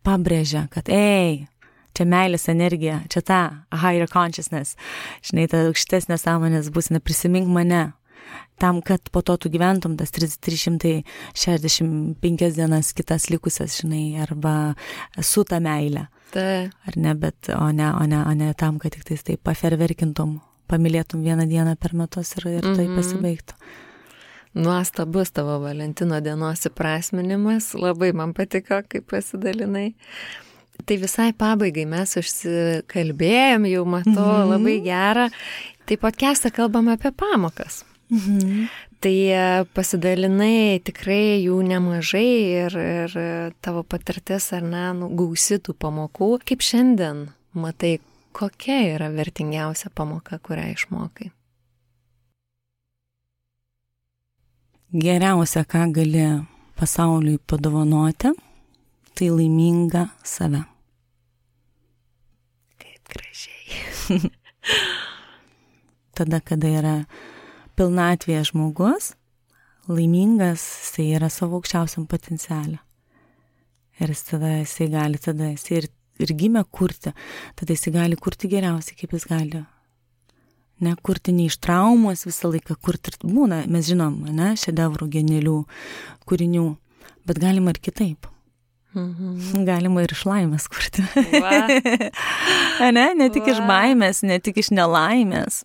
B: pabrėžia, kad čia meilės energija, čia ta higher consciousness, žinai, ta aukštesnė sąmonės būsena, prisimink mane. Tam, kad po to tu gyventum tas 365 dienas kitas likusias, žinai, arba su ta meilė. Ar ne, bet o ne tam, kad tik tai paferverkintum, pamylėtum vieną dieną per metus ir tai pasibaigtų.
A: Nuostabus tavo Valentino dienos įprasminimas, labai man patiko, kaip pasidalinai. Tai visai pabaigai mes užsikalbėjom, jau matau, labai gerą. Tai podcast'e kalbam apie pamokas. Tai pasidalinai tikrai jų nemažai ir tavo patirtis, ar ne, gausi tų pamokų. Kaip šiandien matai, kokia yra vertingiausia pamoka, kurią išmokai?
B: Geriausia, ką gali pasauliui padovanoti, tai laiminga save.
A: Kaip gražiai.
B: Tada, kada yra pilnatvėje žmogus, laimingas, jisai yra savo aukščiausiam potencialą. Ir jisai gali ir gimė kurti, tada jisai gali kurti geriausiai, kaip jis gali. Ne, kurti ne iš traumos visą laiką, kurti ir būna, mes žinom, ne, šedevrų, genialių kūrinių, bet galima ir kitaip. Galima ir iš laimės kurti. Ne tik iš baimės, ne tik iš nelaimės.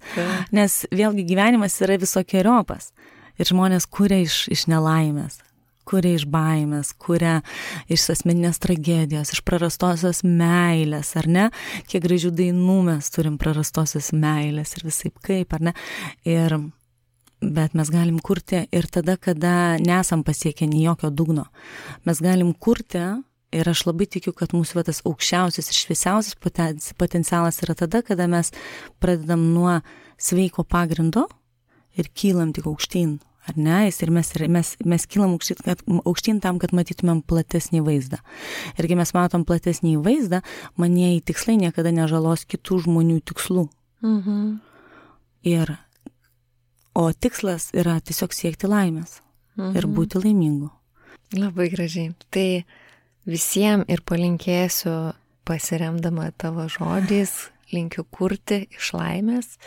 B: Nes vėlgi gyvenimas yra visokiojopas. Ir žmonės kuria iš nelaimės, kuria iš baimės, kuria iš asmeninės tragedijos, iš prarastosios meilės, ar ne? Kiek gražių dainų mes turim prarastosios meilės ir visaip kaip, ar ne? Bet mes galim kurti ir tada, kada nesam pasiekę nei jokio dugno. Mes galim kurti ir aš labai tikiu, kad mūsų tas aukščiausias ir šviesiausias potencialas yra tada, kada mes pradedam nuo sveiko pagrindo ir kylam tik aukštyn, ar ne? Ir mes kylam aukštyn tam, kad matytumėm platesnį vaizdą. Ir kai mes matom platesnį vaizdą, manieji tikslai niekada nežalos kitų žmonių tikslų. O tikslas yra tiesiog siekti laimės ir būti laimingu.
A: Labai gražiai. Tai visiems ir palinkėsiu, pasiremdama tavo žodžiais, linkiu kurti iš laimės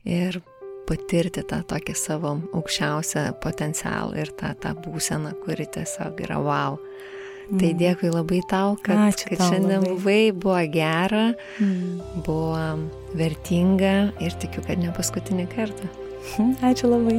A: ir patirti tą tokį savo aukščiausią potencialą ir tą būseną, kuri tiesiog yra wow. Tai dėkui labai tau, kad šiandien buvai, buvo gera, buvo vertinga ir tikiu, kad ne paskutinį kartą.
B: Ačiū labai.